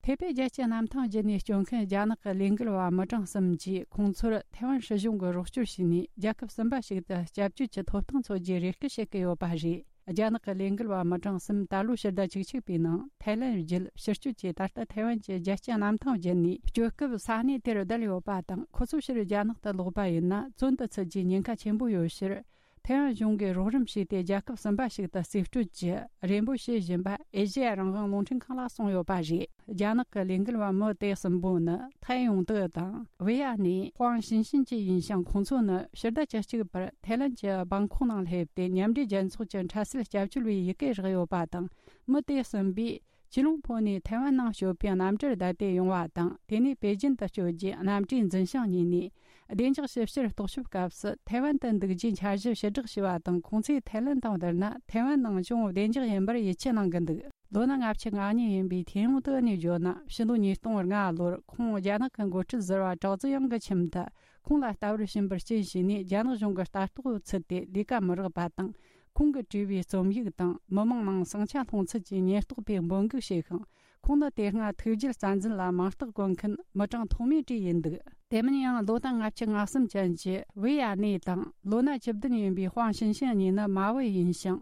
ཐེ་པེ་རྒྱལ་གཅེས་གནམ་ཐང་བརྒྱུད་ནས་སྐྱོད་མཁན་རྒྱ་ནག་གི་ལས་འགུལ་བ་མི་གྲངས་གསུམ་གྱིས་ཁོང་ཚོར་ཐའེ་ཝན་སྲིད་གཞུང་གིས་རོགས་སྐྱོར་བྱས་ནས་རྒྱལ་ཁབ་གསུམ་པ་ཞིག་ཏུ་སྐྱབས་བཅོལ་གྱི་ཐོབ་ཐང་འཚོལ་རྒྱུའི་རེ་སྐུལ་བྱེད་ཀྱི་ཡོད་པ་རེད། རྒྱ་ནག་གི་ལས་འགུལ་བ་མི་གྲངས་གསུམ་ད་ལོའི་ཕྱི་ཟླ་བཅུ་གཅིག་པའི་ནང་ཐའེ་ལན་བརྒྱུད་ཕྱིར་སྐྱོད་ཀྱིས་ད་ལྟ་ཐའེ་ཝན་གྱི་རྒྱལ་གཅེས་གནམ་ཐང་བརྒྱུད་ནས་སྐྱོད་སྐབས་ས་གནས་དེར་བསྡད་ཡོད་པ་དང་། ཁོ་ཚོ་ཕྱིར་རྒྱ་ནག་ཏུ་ལོག་པ་ཡིན་ན་བཙོན་དུ་ཚུད་རྒྱུའི་ཉེན་ཁ་ཆེན་པོ་ཡོད་ཕྱིར། ཐའེ་ཝན་གཞུང་གིས་རོགས་རམ་བྱས་ཏེ་རྒྱལ་ཁབ་གསུམ་པ་ཞིག་ཏུ་རྩིས་སྤྲོད་ཀྱི་རེ་འབོད་བྱེད་བཞིན་པ་ཨེ་ཤེ་ཡ་རང་དབང་རླུང་འཕྲིན་ཁང་ལ་གསུངས་ཡོད་པ་རེད། རྒྱ་ནག་གི་ལས་འགུལ་བ་མི་དེ་གསུམ་པོ་ནི་ཐའེ་ཡུང་ཏེ་དང་། ཝེ་ཡ་ནེ། ཧུའང་ཞིན་ཤིན་བཅས་ཡིན་ཞིང་། ཁོང་ཚོ་ནི་ཕྱི་ཟླ་བཅུ་གཅིག་པར་ཐའེ་ལན་གྱི་བང་ཁོག་ནང་སླེབས་ཏེ། མཉམ་འབྲེལ་རྒྱལ་ཚོགས་ཀྱི་འཕྲལ་སེལ་སྐྱབས་བཅོལ་བའི་ཡི་གེ་རག་ཡོད་པ་དང་། མི་དེ་གསུམ་པོས་ཅི་ལུང་ཕོ་ནས་ཐའེ་ཝན་ནང་སྐྱོད་པའི་གནམ་གྲུར་བསྡད་དེ་ཡོང་བ་དང་། དེ་ནས་པེ་ཅིན་དུ་སྐྱོད་རྒྱུའི་གནམ་གྲུའི་འཛིན་བྱང་གཉིས་ནས་བདེ་འཇགས་ཞིབ་བཤེར་རྟོག་ཞིབ་སྐབས་སུ་ཐའེ་ཝན་དུ་འདུག་རྒྱུའི་འཆར་གཞི་ཕྱིར་བསྒྲགས་བྱས་པ་དང་། ཁོང་ཚོས་ཐའེ་ལན་དང་བསྡུར་ན་ཐའེ་ཝན་ནང་ཅུང་བདེ་འཇགས་ཡིན་པར་ཡིད་ཆེས་གནང་གི་འདུག་ལོ་ན་ལྔ་བཅུ་ང་གཉིས་ཡིན་པའི་ཐའེ་ཡུང་ཏེ་ནས་བརྗོད་ན། ཕྱི་ལོ་ཉིས་སྟོང་ལྔ་ལོར་ཁོང་རྒྱ་ནག་གི་འགོ་ཁྲིད་ཟུར་པ་ཀྲའོ་ཙེ་ཡང་གི་ཁྱིམ་དུ། ཁོང་ལ་ལྟ་བར་ཕྱིན་པར་རྐྱེན་བྱས་ནས། རྒྱ་ནག་གཞུང་གི་ལྟ་རྟོག་ཚུད་དེ་ལས་ཀ་མི་རག་པ་དང་། ཁོང་གིས་བྲིས་པའི་རྩོམ་ཡིག་དང་མི་མང་ནང་ཟིང་ཆ་སློང་ཚུལ་གྱི་ཉེན་རྟོག་པས་འབོད་འགུག་བྱས་ཤིང་། ཁོང་ནི་དེ་སྔ་ཐུགས་རྒྱུད་བཙན་འཛུལ་ལ་མིང་རྟགས་བཀོད་མཁན་མི་གྲངས་ཐོག་མའི་གྲས་ཡིན་འདུག་དེ་མིན་ཡང་ལོ་ན་ལྔ་བཅུ་ང་གསུམ་ཅན་གྱི་ཝེ་ཡ་ནེ་དང་། ལོ་ན་བཅུ་བདུན་ཡིན་པའི་ཧུའང་ཞིན་ཤིན་གཉིས་ནི་མ་བུ་ཡིན་ཞིང་།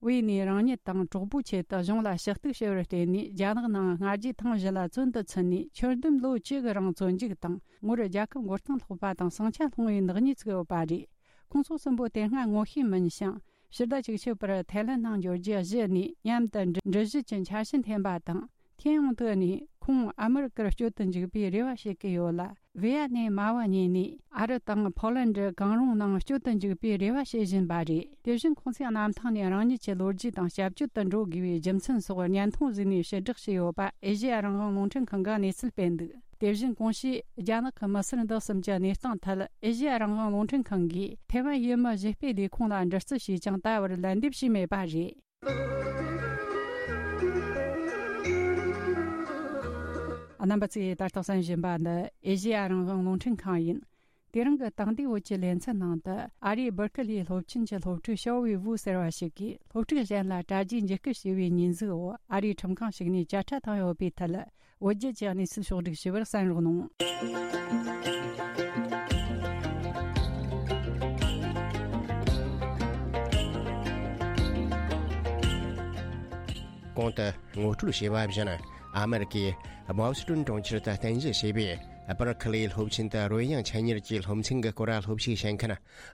ཝེ་ནེ་རང་ཉིད་དང་གྲོགས་པོའི་ཆེད་དུ་གཞུང་ལ་ཞུ་གཏུག་བྱེད་པར་བརྟེན་ནས། རྒྱ་ནག་ནང་སྔ་རྗེས་ཐེངས་བཞི་ལ་བཙོན་དུ་ཚུད་ནས། ཁྱོན་བསྡོམས་ལོ་བཅུ་གི་རིང་བཙོན་འཇུག་དང་། ངོར་རྒྱལ་ཁབ་མགོ་རྟིང་སློག་པ་དང་ཟིང་ཆ་སློང་བའི་ནག་ཉེས་བཙུགས་ཡོད་པ་རེད། ཁོང་ཚོ་གསུམ་པོ་དེ་སྔ་ངོ་ཤེས་མིན་ཞིང་། ཕྱི་ཟླ་བཅུ་གཅིག་པར་ཐའེ་ལན་ནང་འབྱོར་རྒྱུ་གཞི་ནས་མཉམ་དུ་འགྲུལ་བཞུད་ཀྱི་འཆར་གཞི་འཐེན་པ་དང་། ཐའེ་ཡུང་ཏེ་ནས་ཁོང་ཨ་མི་རི་ཀར་སྐྱོད་དུ་འཇུག་པའི་རེ་བ་བྱེད་ཀྱི་ཡོད་ལ། ཝེ་ཡ་ནེ་མ་བུ་གཉིས་ནས་ཨ་རི་དང་ཕོ་ལན་ཌི་གང་རུང་ནང་སྐྱོད་དུ་འཇུག་པའི་རེ་བ་བྱེད་བཞིན་པ་རེད། དེ་བཞིན་ཁོང་ཚོས་གནམ་ཐང་ནས་རང་ཉིད་ཀྱི་ལོ་རྒྱུས་དང་སྐྱབས་བཅོལ་དུ་འགྲོ་དགོས་པའི་རྒྱུ་མཚན་སོགས་བརྙན་ཐུང་བཟོས་ནས་ཕྱིར་བསྒྲགས་བྱས་ཡོད་པ་ཨེ་ཤེ་ཡ་རང་དབང་རླུང་འཕྲིན་ཁང་གིས་གནས་ཚུལ་སྤེལ་འདུག་དེ་བཞིན་གོང་ཞུས་རྒྱ་ནག་གི་མི་སེར་འདི་གསུམ་གྱི་གནས་སྟངས་ཐད་ཨེ་ཤེ་ཡ་རང་དབང་རླུང་འཕྲིན་ཁང་གིས་ཐེ་ཝན་ཡུལ་མི་གཞིས་སྤོས་ལས་ཁུངས་ལ་འདྲི་རྩད་བྱས་ཀྱང་ད་བར་ལན་འདེབས་བྱས་མེད་པ་རེད། རྣམ་པ་ཚོས་ད་ལྟ་གསན་བཞིན་པ་འདི་ཨེ་ཤེ་ཡ་རང་དབང་རླུང་འཕྲིན་ཁང་ཡིན། དེ་རིང་གི་དེང་དུས་བོད་ཀྱི་ལེ་ཚན་ནང་དུ་ཨ་རིའི་སྦུར་ཁི་ལིའི་སློབ་ཆེན་གྱི་སློབ་ཕྲུག་ཞའོ་ཝེ་ཝུ་ཟེར་བ་ཞིག་གིས་སློབ་ཕྲུག་གཞན་ལ་དྲ་རྒྱའི་འཇིགས་སྐུལ་བྱས་པའི་ཉེས་འཛུགས་འོག་ཨ་རིའི་ཁྲིམས་ཁང་ཞིག་ནས་བཅད་ཁྲ་བཏང་ཡོད་པའི་ཐད། བོད་བརྒྱུད་ཀྱི་གནས་ཚུལ་ཕྱོགས་བསྒྲིགས་ཞུ་བར་གསན་རོགས་གནང་། གོང་དུ་ངོ་སྤྲོད་བྱས་པ་བཞིན། ཨ་མེ་རི་ཀའི་བྷོ་སི་ཊོན་གྲོང་ཁྱེར་དུ་རྟེན་གཞི་བྱས་པའི་སྦར་ཁི་ལིའི་སློབ་ཆེན་དུ་རོལ་དབྱངས་འཕྲིན་གཉེར་གྱི་སློབ་ཚན་གྱི་སྐོར་སློབ་ཞུགས་བྱེད་མཁན་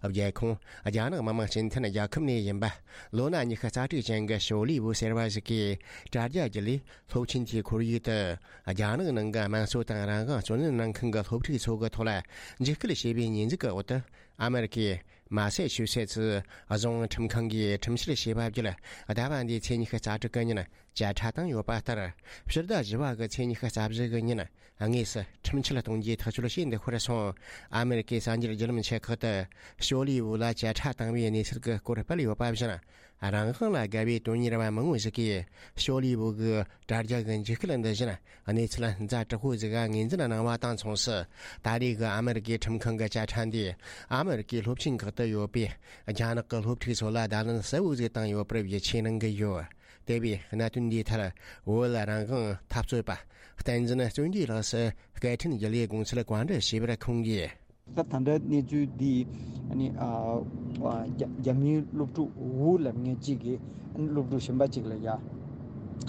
རྒྱལ་ཁོངས་རྒྱ་ནག་མི་དམངས་སྤྱི་མཐུན་རྒྱལ་ཁབ་ནས་ཡིན་པ། ལོ་ན་ཉི་ཤུ་རྩ་དྲུག་ཅན་གྱི་ཞའོ་ལི་ཝུ་ཟེར་བ་ཞིག་གིས་དྲ་རྒྱ་བརྒྱུད་ལས་སློབ་ཆེན་དེའི་ཁོར་ཡུག་ཏུ་རྒྱ་ནག་ནང་གི་དམངས་གཙོ་དང་རང་དབང་རྩོད་ལེན་གནང་མཁན་གྱི་སློབ་ཕྲུག་ཚོ་གི་ཐོག་ལ་འཇིགས་སྐུལ་བྱས་པའི་ཉེས་འཛུགས་ཀྱི་འོག་ཏུ། ཨ་མེ་རི་ཀའི་མ་སེ་ཆུ་སེ་ཙི་རྫོང་ཁྲིམས་ཁང་གིས་ཁྲིམས་བཤེར་བྱས་པ་བརྒྱུད། ཟླ་བ་འདིའི་ཚེས་ཉི་ཤུ་རྩ་དྲུག་གི་ཉིན་བཅད་ཁྲ་བཏང་ཡོད་པ་ལྟར། ཕྱི་ཟླ་བཞི་པ་གི་ཚེས་ཉི་ཤུ་རྩ་བཞི་གི་ཉིན། དངོས་སུ་ཁྲིམས་ཆད་གཏོང་རྒྱུའི་ཐག་གཅོད་བྱས་འདུག་ཁར་སོང་། ཨ་མེ་རི་ཀའི་གསར་འགྱུར་བརྒྱུད་ལམ་ཆེ་ཁག་ཏུ་ཞའོ་ལི་ཝུ་ལ་བཅད་ཁྲ་བཏང་བའི་གནས་ཚུལ་གྱི་སྐོར་སྤེལ་ཡོད་པ་བཞིན། རང་དབང་ལ་དགའ་བའི་དོན་གཉེར་བ་མང་བོ་ཞིག་གིས་ཞའོ་ལི་ཝུ་གི་དྲ་རྒྱ་གི་འཇིགས་སྐུལ་འདི་བཞིན་གནས་ཚུལ་ཛ་དྲག་པོ་ཟིག་ངོས་འཛིན་གནང་བ་དང་མཚུངས་སུ། ད་རེས་ཀྱི་ཨ་མེ་རི་ཀའི་ཁྲིམས་ཁང་གི་བཅད་ཁྲ་འདིས་ཨ་མེ་རི་ཀའི་སློབ་ཆེན་ཁག་ཏུ་ཡོད་པའི་རྒྱ་ནག་གི་སློབ་ཕྲུག་ཚོ་ལ་བརྡ་ལན་གསལ་བོ་ཟིག་བཏང་ཡོད་པར་ཡིད་ཆེས་གནང་གི་ཡོད། དེ་བས་གནད་དོན་འདིའི་ཐད་བོད་རང་དབང་འཐབ་རྩོད་པ་བསྟན་འཛིན་བརྩོན་འགྲུས་ལགས་སུ་སྐད་འཕྲིན་བརྒྱུད་ལས་དགོངས་ཚུལ་བཀའ་འདྲི་ཞུས་པར་ཁོང་གིས། ད་ད་ལྟ་གནས་ཚུལ་འདི་ཨ་ནི་ཨ་ཨ་རྒྱ་རྒྱ་མིའི་སློབ་ཕྲུག་ཝུ་ལབ་མཁན་གཅིག་གིས་ཨ་ནི་སློབ་ཕྲུག་གཞན་པ་གཅིག་ལ་ཡ་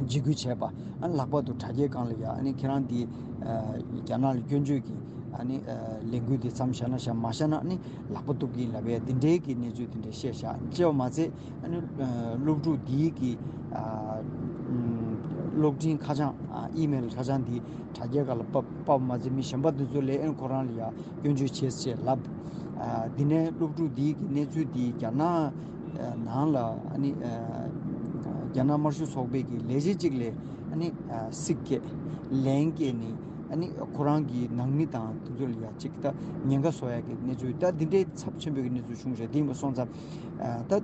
འཇིགས་སྐུལ་བྱས་པ། ཨ་ནི་ལྷག་པར་དུ་དྲ་རྒྱའི་སྒང་ལ་ཡ་ཨ་ནི་ཁྱེད་རང་འདི་ཨ་རྒྱ་ནག་ལ་སྐྱོན་བརྗོད་ཀྱི་ཨ་ནི་ཨ་ལས་འགུལ་འདི་མཚམས་བཞག་ན་བཞག་མ་བཞག་ན་ཨ་ནི་ལག་པ་གཏུབ་ཀྱི་ཡིན་ལབ་པའི་འདི་འདྲའི་གི་གནས་ཚུལ་འདི་འདྲ་བཤད་བཞག་བྱས་པ་མ་ཚད། ཨ་ནི་ཨ་སློབ་ཕྲུག་འདིའི་གི་ཨ་ཨམ་གློག་འཕྲིན་ཁ་བྱང་ཨ་ཨི་མེལ་ཁ་བྱང་འདི་དྲ་རྒྱའི་སྒང་ལ་ཕབ་ཕབ་མ་ཚད་མི་གཞན་པ་འདི་ཚོ་ལ་ཨ་ནི་ཁོ་རང་ལ་ཡ་སྐྱོན་བརྗོད་བྱས་ཅེས་ལབ། ཨ་འདི་ནས་སློབ་ཕྲུག་འདིའི་གི་གནས་ཚུལ་འདི་རྒྱ་ནག་ཨ་ནང་ལ་ཨ་ནི་ཨ་རྒྱ་ནག་དམར་ཤོག་ཚོགས་པའི་གི་ལས་བྱེད་ཅིག་ལ་ཨ་ནི་ཨ་སྲིད་སྐད་ལན་སྐད་ནས་ཨ་ནི་ཁོ་རང་གི་ནང་མི་དང་དེ་ཚོ་ལ་ཡ་ཅིག་ད་ཉེན་ཁ་བཟོ་ཡ་གི་གནས་ཚུལ། ད་འདི་འདྲའི་ཚབས་ཆེན་པོའི་གི་གནས་ཚུལ་བྱུང་རེད། དེ་ཡིན་པ་སོང་ཙང་ཨ་ད་ཨ་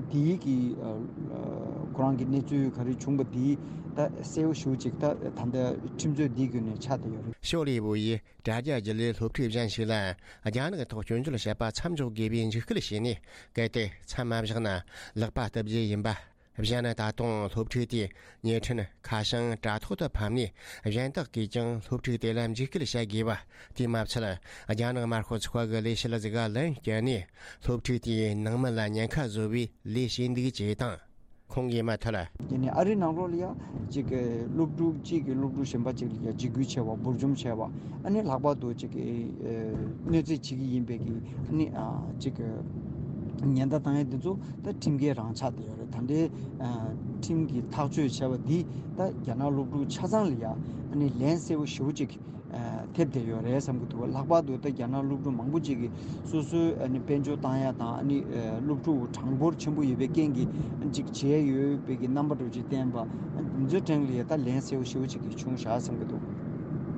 འདིའི་གི་ཨ་ཁོ་རང་གི་གནས་ཚུལ་ག་རེ་བྱུང་པ་འདི་ད་གསལ་བོ་ཞེ་པོ་ཅིག་ད་ད་ལྟ་ཁྲིམས་རྩོད་འདིའི་བརྒྱུད་ནས་ཆགས་བསྡད་ཡོད་རེད། ཞའོ་ལི་ཝུ་ཡིས་དྲ་རྒྱ་བརྒྱུད་ལས་སློབ་ཕྲུག་གཞན་ཞིག་ལ་རྒྱ་ནག་ཐོག་སྐྱོན་བརྗོད་བྱས་པ་མཚམས་འཇོག་དགོས་པའི་འཇིགས་སྐུལ་བྱས་ནས། གལ་ཏེ་མཚམས་མ་བཞག་ན་ལག་པ་བཏབ་རྒྱུ་ཡིན་པ། གཞན་ད་དུང་སློབ་ཕྲུག་དེས་ཉལ་ཁྲིན་ཁ་བྱང་དྲ་ཐོག་ཏུ་ཕབ་ནས། གཞན་དག་གིས་ཀྱང་སློབ་ཕྲུག་དེ་ལ་འཇིགས་སྐུལ་བྱ་དགོས་པ། དེས་མ་ཚད། རྒྱ་ནག་དམར་ཤོག་ཚོགས་པ་གི་ལས་བྱེད་ཟིག་ག་ལན་བསྐྱལ་ནས། སློབ་ཕྲུག་དེའི་ནང་མི་ལ་ཉེན་ཁ་བཟོ་བའི་ལས་བྱས་འདུག་ཅེས་དང་། ཁོང་གིས་མུ་མཐུད། དེ་ནས་ཨ་རིའི་ནང་ལོགས་ལ་ཡ་ཅིག་གི་སློབ་ཕྲུག་གཅིག་གིས་སློབ་ཕྲུག་གཞན་པ་ཅིག་ལ་ཡ་འཇིགས་སྐུལ་བྱས་པ། འབུར་འཇོམས་བྱས་པ། ཨ་ནི་ལྷག་པར་དུ་ཅིག་གི་ཨ་གནོད་འཚེ་བྱེད་ཀྱི་ཡིན་པའི་གི་ཨ་ནི་ཨ་ཅིག་གི་ཉེན་བརྡ་བཏང་ཡ་འདི་ཚོ་ད་ཁྲིམས་འགལ་རང་ཆགས་བསྡད་ཡོད་རེད། ད་ལྟའི་ཨ་ཁྲིམས་ཀྱིས་ཐག་གཅོད་བྱས་པ་འདི་ད་རྒྱ་ནག་སློབ་ཕྲུག་ཆ་ཚང་ལ་ཡ་ཨ་ནི་ལན་གསལ་པོ་ཞེ་པོ་ཅིག་ཨ་ཐེབས་བསྡད་ཡོད་རེད་བསམ་གྱི་འདུག་ལྷག་པར་དུ་ད་རྒྱ་ནག་སློབ་ཕྲུག་མང་པོ་ཅིག་གིས་སོ་སོའི་ཨ་ནི་དཔལ་འབྱོར་བཏང་ཡ་དང་ཨ་ནི་ཨ་སློབ་ཕྲུག་གྲངས་འབོར་ཆེན་པོ་ཡོད་པའི་རྐྱེན་གྱིས་ཨ་ནི་ཅིག་བྱས་ཡོད་པའི་གི་རྣམ་པ་འདྲ་ཅིག་བསྟན་པ། ཨ་འདི་ཚོའི་སྟེང་ལ་ཡ་ད་ལན་གསལ་པོ་ཞེ་པོ་ཅིག་གིས་བྱུང་བཞག་བསམ་གྱི་འདུག་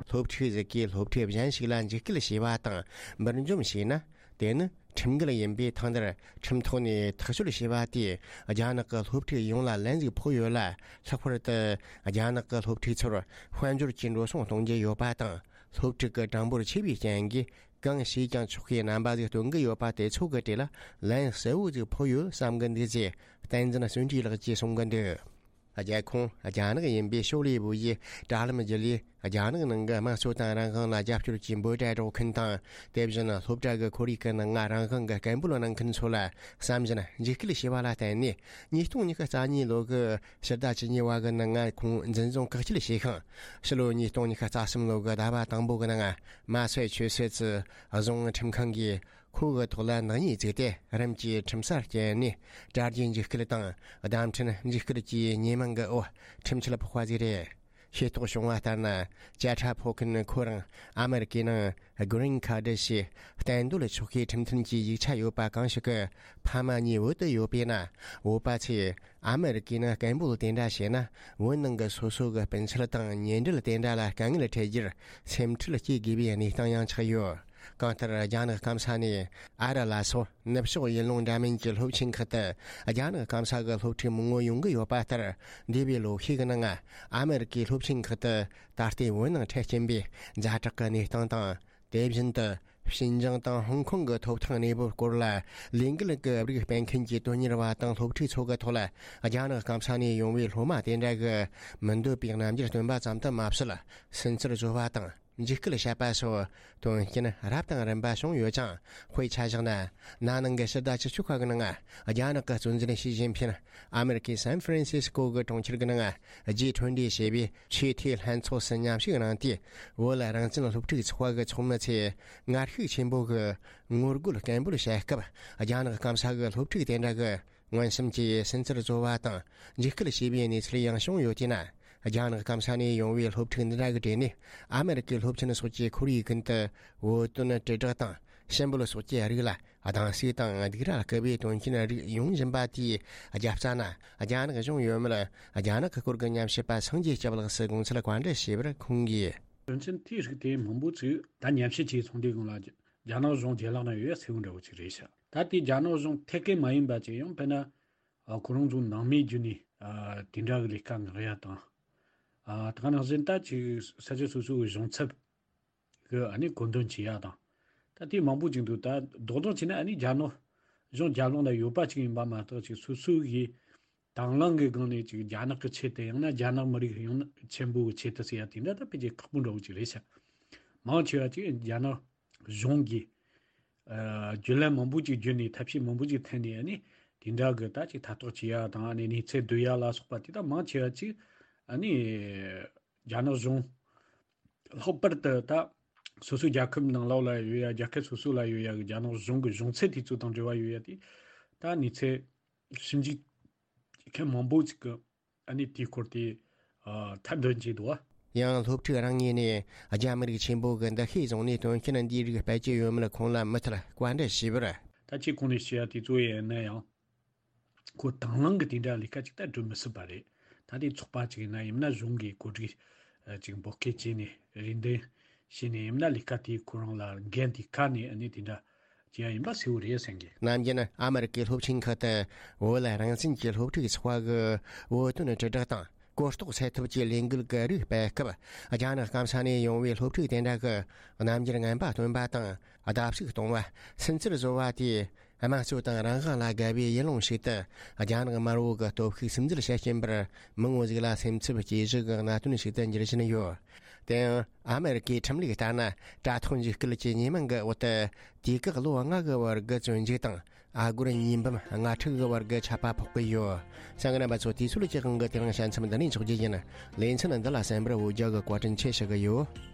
སློབ་ཕྲུག་ཟིག་གིས་སློབ་ཕྲུག་གཞན་ཞིག་ལ་འཇིགས་སྐུལ་བྱས་པ་དང་འབུར་འཇོམས་བྱས་ན། དེ་ནི་ཁྲིམས་འགལ་ཡིན་པས། ཐེངས་འདིར་ཁྲིམས་ཐོག་ནས་ཐག་གཅོད་བྱས་པ་དེས་རྒྱ་ནག་གི་སློབ་ཕྲུག་ཡོངས་ལ་ལན་ཟིག་ཕོག་ཡོད་ལ། ལྷག་པར་དུ་རྒྱ་ནག་གི་སློབ་ཕྲུག་ཚོར་དཔལ་འབྱོར་གྱི་འགྲོ་སོང་གཏོང་རྒྱུ་ཡོད་པ་དང་། སློབ་ཕྲུག་གི་གྲངས་འབོར་ཆེ་བའི་རྐྱེན་གྱིས་གང་བྱས་ཀྱང་ཆོག་པའི་རྣམ་པ་ཟིག་སྟོན་གྱི་ཡོད་པ་དེ་ཚོ་གི་གྲས་ལ་ལན་གསལ་བོ་ཟིག་ཕོག་ཡོད་བསམ་གི་འདུག་ཅེས་བསྟན་འཛིན་བརྩོན་འགྲུས་ལགས་ཀྱིས་གསུང་གི་འདུག་རྒྱལ་ཁོངས་རྒྱ་ནག་ཡིན་པའི་ཞའོ་ལི་ཝུ་ཡིས་དྲ་ལམ་བརྒྱུད་ལས་རྒྱ་ནག་ནང་གི་དམངས་གཙོ་དང་རང་དབང་ལ་རྒྱབ་སྐྱོར་གྱི་འབོད་སྒྲ་སྒྲོག་མཁན་དང་། དེ་བཞིན་སློབ་གྲྭ་གི་ཁོར་ཡུག་གི་ནང་ང་རང་དབང་གི་སྐད་འབོད་གནང་མཁན་ཚོ་ལ་བསམ་བཞིན་འཇིགས་སྐུལ་བྱས་པ་ལ་བརྟེན་ནས། ཉིས་སྟོང་ཉི་ཤུ་རྩ་གཉིས་ལོ་གི་ཕྱི་ཟླ་བཅུ་གཉིས་པ་གི་ནང་ང་ཁོང་འཛིན་བཟུང་བཀག་སྐྱིལ་བྱས་ཤིང་། ཕྱི་ལོ་ཉིས་སྟོང་ཉི་ཤུ་རྩ་གསུམ་ལོ་གི་ཟླ་བ་དང་པོ་གི་ནང་། མ་སའི་ཆུ་སེར་ཙི་རྫོང་ཁྲིམས་ཁང་གིས་ཁོ་གི་ཐོག་ལ་ནག་ཉེས་བཙུགས་ཏེ། རིམ་གྱིས་ཁྲིམས་སར་བསྐྱལ་ནས། དྲ་རྒྱའི་འཇིགས་སྐུལ་དང་། བརྡ་འཕྲིན་འཇིགས་སྐུལ་གྱི་ཉེས་མིང་གི་འོག་ཁྲིམས་ཆད་ཕོག་པ་ཞིག་རེད། ཤེས་རྟོགས་བྱུང་བ་ལྟར་ན། བཅད་ཁྲ་ཕོག་མཁན་ཁོ་རང་ཨ་མེ་རི་ཀའི་ནང་Green Card་ཞེས་གཏན་སྡོད་ཆོག་ཤེས་ཁྲིམས་མཐུན་གྱི་ཡིག་ཆ་ཡོད་པ་གང་ཞིག་གི་ཕ་མ་གཉིས་བོད་དུ་ཡོད་པས་ན། བོད་པ་ཚོས་ཨ་མེ་རི་ཀའི་ནང་སྐད་འབོད་དེ་འདྲ་བྱས་ན། བོད་ནང་གི་སོ་སོ་གི་སྤུན་མཆེད་དང་ཉེ་འབྲེལ་དེ་འདྲ་ལ་དཀའ་ངལ་འཕྲད་རྒྱུར་སེམས་ཁྲལ་སྐྱེ་དགོས་པའི་གནས་སྟངས་ཡང་ཆགས་ཡོད། གང་ལྟར། རྒྱ་ནག་སྐམ་ས་ནས་ཨ་རི་ལ་སོགས་ནུབ་ཕྱོགས་ཡུལ་ལུང་འདྲ་མིན་གྱི་སློབ་ཆེན་ཁག་ཏུ་རྒྱ་ནག་སྐམ་ས་གི་སློབ་ཕྲུག་མང་པོ་ཡོང་གི་ཡོད་པ་ལྟར། འདས་པའི་ལོ་ཤས་ཀྱི་ནང་ཨ་མེ་རི་ཀའི་སློབ་ཆེན་ཁག་ཏུ་ད་ལྟའི་བོད་ནང་འཕྲད་ཀྱིན་པའི་ཛ་དྲག་གི་གནས་སྟངས་དང་། དེ་བཞིན་དུ་ཤིན་ཅང་དང་ཧོང་ཀོང་གི་ཐོབ་ཐང་གནས་བབ་སྐོར་ལ་ལས་འགུལ་གྱི་རིགས་སྤེལ་མཁན་གྱི་དོན་གཉེར་བ་དང་སློབ་ཕྲུག་ཚོ་གི་ཐོག་ལ། རྒྱ་ནག་སྐམ་ས་ནས་ཡོང་བའི་སློབ་མ་དེ་འདྲ་གི་མི་འདོད་པའི་རྣམ་འགྱུར་སྟོན་པ་ཙམ་དུ་མ་ཟད། སུན་གཙེར་བཟོ་བ་དང་འཇིགས་སྐུལ་བྱེད་པ་སོགས་དོན་རྐྱེན་རབ་དང་རིམ་པ་བྱུང་ཡོད་ཅིང་། དཔེ་ཆ་བཞག་ན། ན་ནིང་གི་ཕྱི་ཟླ་བཅུ་གཅིག་པ་གི་ནང་རྒྱ་ནག་གི་གཙོ་འཛིན་ཞི་ཅིན་ཕིང་ཨ་མེ་རི་ཀའི་སན་ཧྥ་རན་སིས་ཀོ་གི་གྲོང་ཁྱེར་གྱི་ནང་G twenty་ཞེས་པའི་ཆེས་མཐོའི་ལྷན་ཚོགས་སུ་མཉམ་ཞུགས་གནང་སྟེ། བོད་རང་བཙན་སློབ་ཕྲུག་ཚོགས་པ་གི་ཚོགས་མི་ཚོས་ངར་ཤུགས་ཆེན་པོ་གིས་ངོ་རྒོལ་སྐད་འབོད་བྱེད་སྐབས། རྒྱ་ནག་སྐམ་ས་གི་སློབ་ཕྲུག་དེ་འདྲ་གིས་མངོན་སུམ་གྱིས་སུན་གཙེར་བཟོ་བ་དང་འཇིགས་སྐུལ་བྱས་པའི་གནས་ཚུལ་ཡང་བྱུང་ཡོད་དེས་ན། རྒྱ་ནག་སྐམ་ས་ནས་ཡོང་བའི་སློབ་ཕྲུག་འདི་འདྲ་གི་གྲས་ནས་ཨ་མེ་རི་ཀའི་སློབ་ཆེན་སོགས་ཀྱི་ཁོར་ཡུག་ཀུན་ཏུ་བོད་དོན་དྲིལ་བསྒྲགས་དང་ཞུ་འབོད་སོགས་ཀྱི་རིགས་ལ་སྡང་ཟུག་དང་སྡིགས་ར་བསྐུལ་བའི་དོན་རྐྱེན་རིགས་ཡོང་བཞིན་པ་དེའི་རྒྱབ་རྩ་ན། རྒྱ་ནག་གཞུང་ཡོད་མེད་རྒྱ་ནག་གི་སྐོར་གྱི་ཉམས་ཞིབ་པ་སངས་རྒྱས་སྐྱབས་ལགས་སུ་དགོངས་ཚུལ་བཀའ་འདྲི་ཞུས་པར་ཁོང་གིས། དོན་ཚན་དེའི་རིགས་དེ་མང་པོ་ཅིག་ད་ཉམས་ཞིབ་བྱས་སོང་དུས་སྒང་ལ་རྒྱ་ནག་གཞུང་རྗེས་ལག་ན་ཡོད་ཡ་ཟེར་བ་འདྲ་བོ་ཅིག་རེད་ཤག་ད་དེ་རྒྱ་ནག་གཞུང་ཐད་ཀའི་མ་ཡིན་པ་ཅིག་ཡང་དཔེར་ན། ཨ། ཁོ་རང་ཚོ་ནང་མིའི་བརྒྱུད་ནས། ཨ། དེ་འདྲ་གི་ལས་ཀ་མངགས་ཡ་དང་། ཨ། ད་ག་ནང་བཞིན་ད་ཅིག་ས་ཆ་སོ་སོ་གི་གཞུང་ཚབ་གི་ཨ་ནི་གོ་འདོན་བྱེད་ཡ་དང་། ད་དེ་མང་པོ་ཅིག་འདུག་ད་རྡོག་རྡོག་བྱས་ན་ཨ་ནི་རྒྱ་ནག་གཞུང་རྒྱབ་ལོགས་ན་ཡོད་པ་ཅིག་ཡིན་པ་མ་གཏོགས། ཅིག་སོ་སོ་གི་དང་བླངས་གི་སྒང་ནས་ཅིག་རྒྱ་ནག་གི་ཆེད་དུ། ཡང་ན་རྒྱ་ནག་མི་རིགས་ཡོངས་ཆེན་པོ་གི་ཆེད་དུ་ཟེར་ཡ་དེ་འདྲ་ད་ཕལ་ཆེར་ཁག་པོ་འདྲ་བོ་ཅིག་རེད་ཤག་མང་ཆེ་བ་ཅིག་རྒྱ་ནག་གཞུང་གིས། ཨ། བརྒྱུད་ལམ་མང་པོ་ཅིག་བརྒྱུད་ནས། ཐབས་ཤེས་མང་པོ་ཅིག་འཐེན་ནས། ཨ་ནི་དེ་འདྲ་གི་ད་ཅིག་ཐ་གཏོགས་བྱེད་ཡ་དང་། ཨ་ནི་གནས་ཚུལ་བསྡུ་ཡ་ལ་སོགས་པ་དེ་དག་མང་ཆེ་བ་ཅིག་ཨ་ནི་རྒྱ་ནག་གཞུང་། ལྷག་པར་དུ་ད་སོ་སོའི་རྒྱལ་ཁབ་ནང་ལོགས་ལ་ཡོད་ཡ། རྒྱལ་ཁབ་སོ་སོ་ལ་ཡོད་ཡ་གི་རྒྱ་ནག་གཞུང་གི་གཞུང་ཚབ་དེ་ཚོ་དང་འབྲེལ་བ་ཡོད་ཡ་དེ། ད་གནས་ཚུལ་ཞིབ་འཇུག་མཁན་མང་པོ་ཅིག་གི་ཨ་ནི་དེའི་སྐོར་དེ། ཨ། ཐེར་འདོན་བྱས་འདུག་བ། ཡང་སློབ་ཕྲུག་རང་ངོས་ནས་རྒྱ་མི་རིགས་ཆེན་པོ་གི་འདུ་ཤེས་བཟུང་ནས་དོན་རྐྱེན་འདིའི་རིགས་སྤེལ་གྱི་ཡོད་མེད་ཁོང་ལ་མུ་མཐུད་བཀའ་འདྲི་ཞུས་པར། ད་ཅི་གོང་ནས་བཤད་ཡ་དེ་ཚོ་ཡིན་ན་ཡང་། ཁོ་དང་བླངས་ཀྱི་དེ་འདྲ་ལས་ཀ་ཅིག་ད་སྒྲུབ་མི་སྲིད་པ་རེད། ད་དེ་ཚོགས་པ་ཅིག་ཡིན་ན། ཡིན་ན་གཞུང་གིས་གོ་སྒྲིག་ཅིག་འབོད་སྐུལ་བྱས་ནས་རེ་འདུན་བྱས་ནས། ཡིན་ན་ལས་ཀ་དེ་ཁོ་རང་ལ་འགན་དེ་ཁ་ནས་ཨ་ནི་དེ་འདྲ་བྱས་ཡ་ཡིན་པ་གསལ་བོ་རེད་བསམ་གི། ནམ་རྒྱུན་ཨ་མེ་རི་ཀའི་སློབ་ཆེན་ཁག་ཏུ་བོད་རང་བཙན་གྱི་སློབ་ཕྲུག་ཚོགས་པ་གི་བོད་དོན་དྲིལ་བསྒྲགས་དང་གོ་རྟོགས་སེལ་ཐབས་ཀྱི་ལས་འགུལ་གྱི་རིགས་སྤེལ་སྐབས། རྒྱ་ནག་སྐམ་ས་ནས་ཡོང་བའི་སློབ་ཕྲུག་དེ་འདྲ་གི་རྣམ་འགྱུར་ངན་པ་སྟོན་པ་དང་བརྡབ་གསིག་གཏོང་བ། སུན་གཙེར་བཟོ་བ་དེས་དམངས་གཙོ་དང་རང་དབང་ལ་དགའ་བའི་ཡུལ་ལུང་ཞིག་ཏུ་རྒྱ་ནག་དམར་པོ་གི་སྟོབས་ཤུགས་སིམ་འཛུལ་བྱེད་ཀྱིན་པར། མི་ངོ་ཟིག་ལ་སེམས་འཚབ་སྐྱེ་གཞི་གི་གནད་དོན་ཞིག་ཏུ་འགྱུར་བཞིན་ཡོད། དེ་ཡང་ཨ་མེ་རི་ཀའི་ཁྲིམས་ལུགས་ལྟར་ན། དྲ་ཐོག་འཇིགས་སྐུལ་གྱི་ཉེས་མིང་གི་འོག་ཏུ་དུས་བཀག་ལོ་ལྔ་གི་བར་གྱི་བཙོན་འཇུག་དང་། ཨ་སྒོར་ཉིས་འབུམ་ལྔ་ཁྲི་གི་བར་གྱི་ཆད་པ་ཕོག་གི་ཡོད། གསན་མཁན་རྣམ་པ་ཚོ། དུས་ཚོད་ཀྱི་དབང་གིས་དེ་རིང་བཤད་མཚམས་འདི་ནས་འཇོག་རྒྱུ་ཡིན། ལེ་ཚན་འདི་ལ་གསན་པར་འོ་བརྒྱལ་གྱི་བཀའ་དྲིན་ཆེ་ཞུ་གི་ཡོད།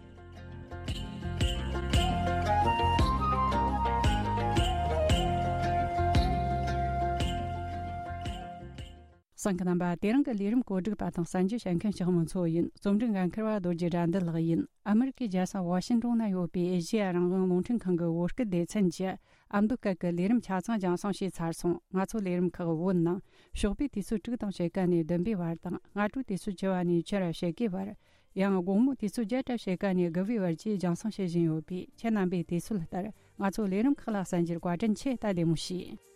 གསན་མཁན་རྣམ་པ། དེ་རིང་གི་ལས་རིམ་གོ་སྒྲིག་པ་དང་གསན་རྒྱུ་བྱེད་མཁན་ཞག་མོ་མཚོ་ཡིན། རྩོམ་སྒྲིག་འགན་འཁུར་བ་རྡོ་རྗེ་དགྲ་འདུལ་ལགས་ཡིན། ཨ་མེ་རི་ཀའི་རྒྱལ་ས་ཝ་ཤིང་ཏོན་ན་ཡོད་པའི་ཨེ་ཤེ་ཡ་རང་དབང་རླུང་འཕྲིན་ཁང་གི་བོད་སྐད་སྡེ་ཚན་གྱི་ཨ་མདོ་སྐད་ཀྱི་ལས་རིམ་ཆ་ཚང་རྒྱང་སྲིང་བྱས་ཚར་སོང་། ང་ཚོ་ལས་རིམ་ཁག་བོད་ནང་ཞོགས་པའི་དུས་ཚོད་དྲུག་དང་ཕྱེད་ཀ་ནས་བདུན་པའི་བར་དང་། སྔ་དྲོའི་དུས་ཚོད་བཅུ་པ་ནས་ཕྱི་ར་ཕྱེད་ཀའི་བར། ཡང་དགོང་མོ་དུས་ཚོད་བརྒྱད་དང་ཕྱེད་ཀ་ནས་དགུ་པའི་བར་བཅས་རྒྱང་སྲིང་བྱེད་བཞིན་ཡོད་པས། ཁྱེད་རྣམ་པས་དུས་ཚོད་ལྟར་ང་ཚོ་ལས་རིམ་ཁག་ལ་གསན་རྒྱུར་བཀའ་དྲིན་ཆེ། ད་བདེ་མོ་བྱོས།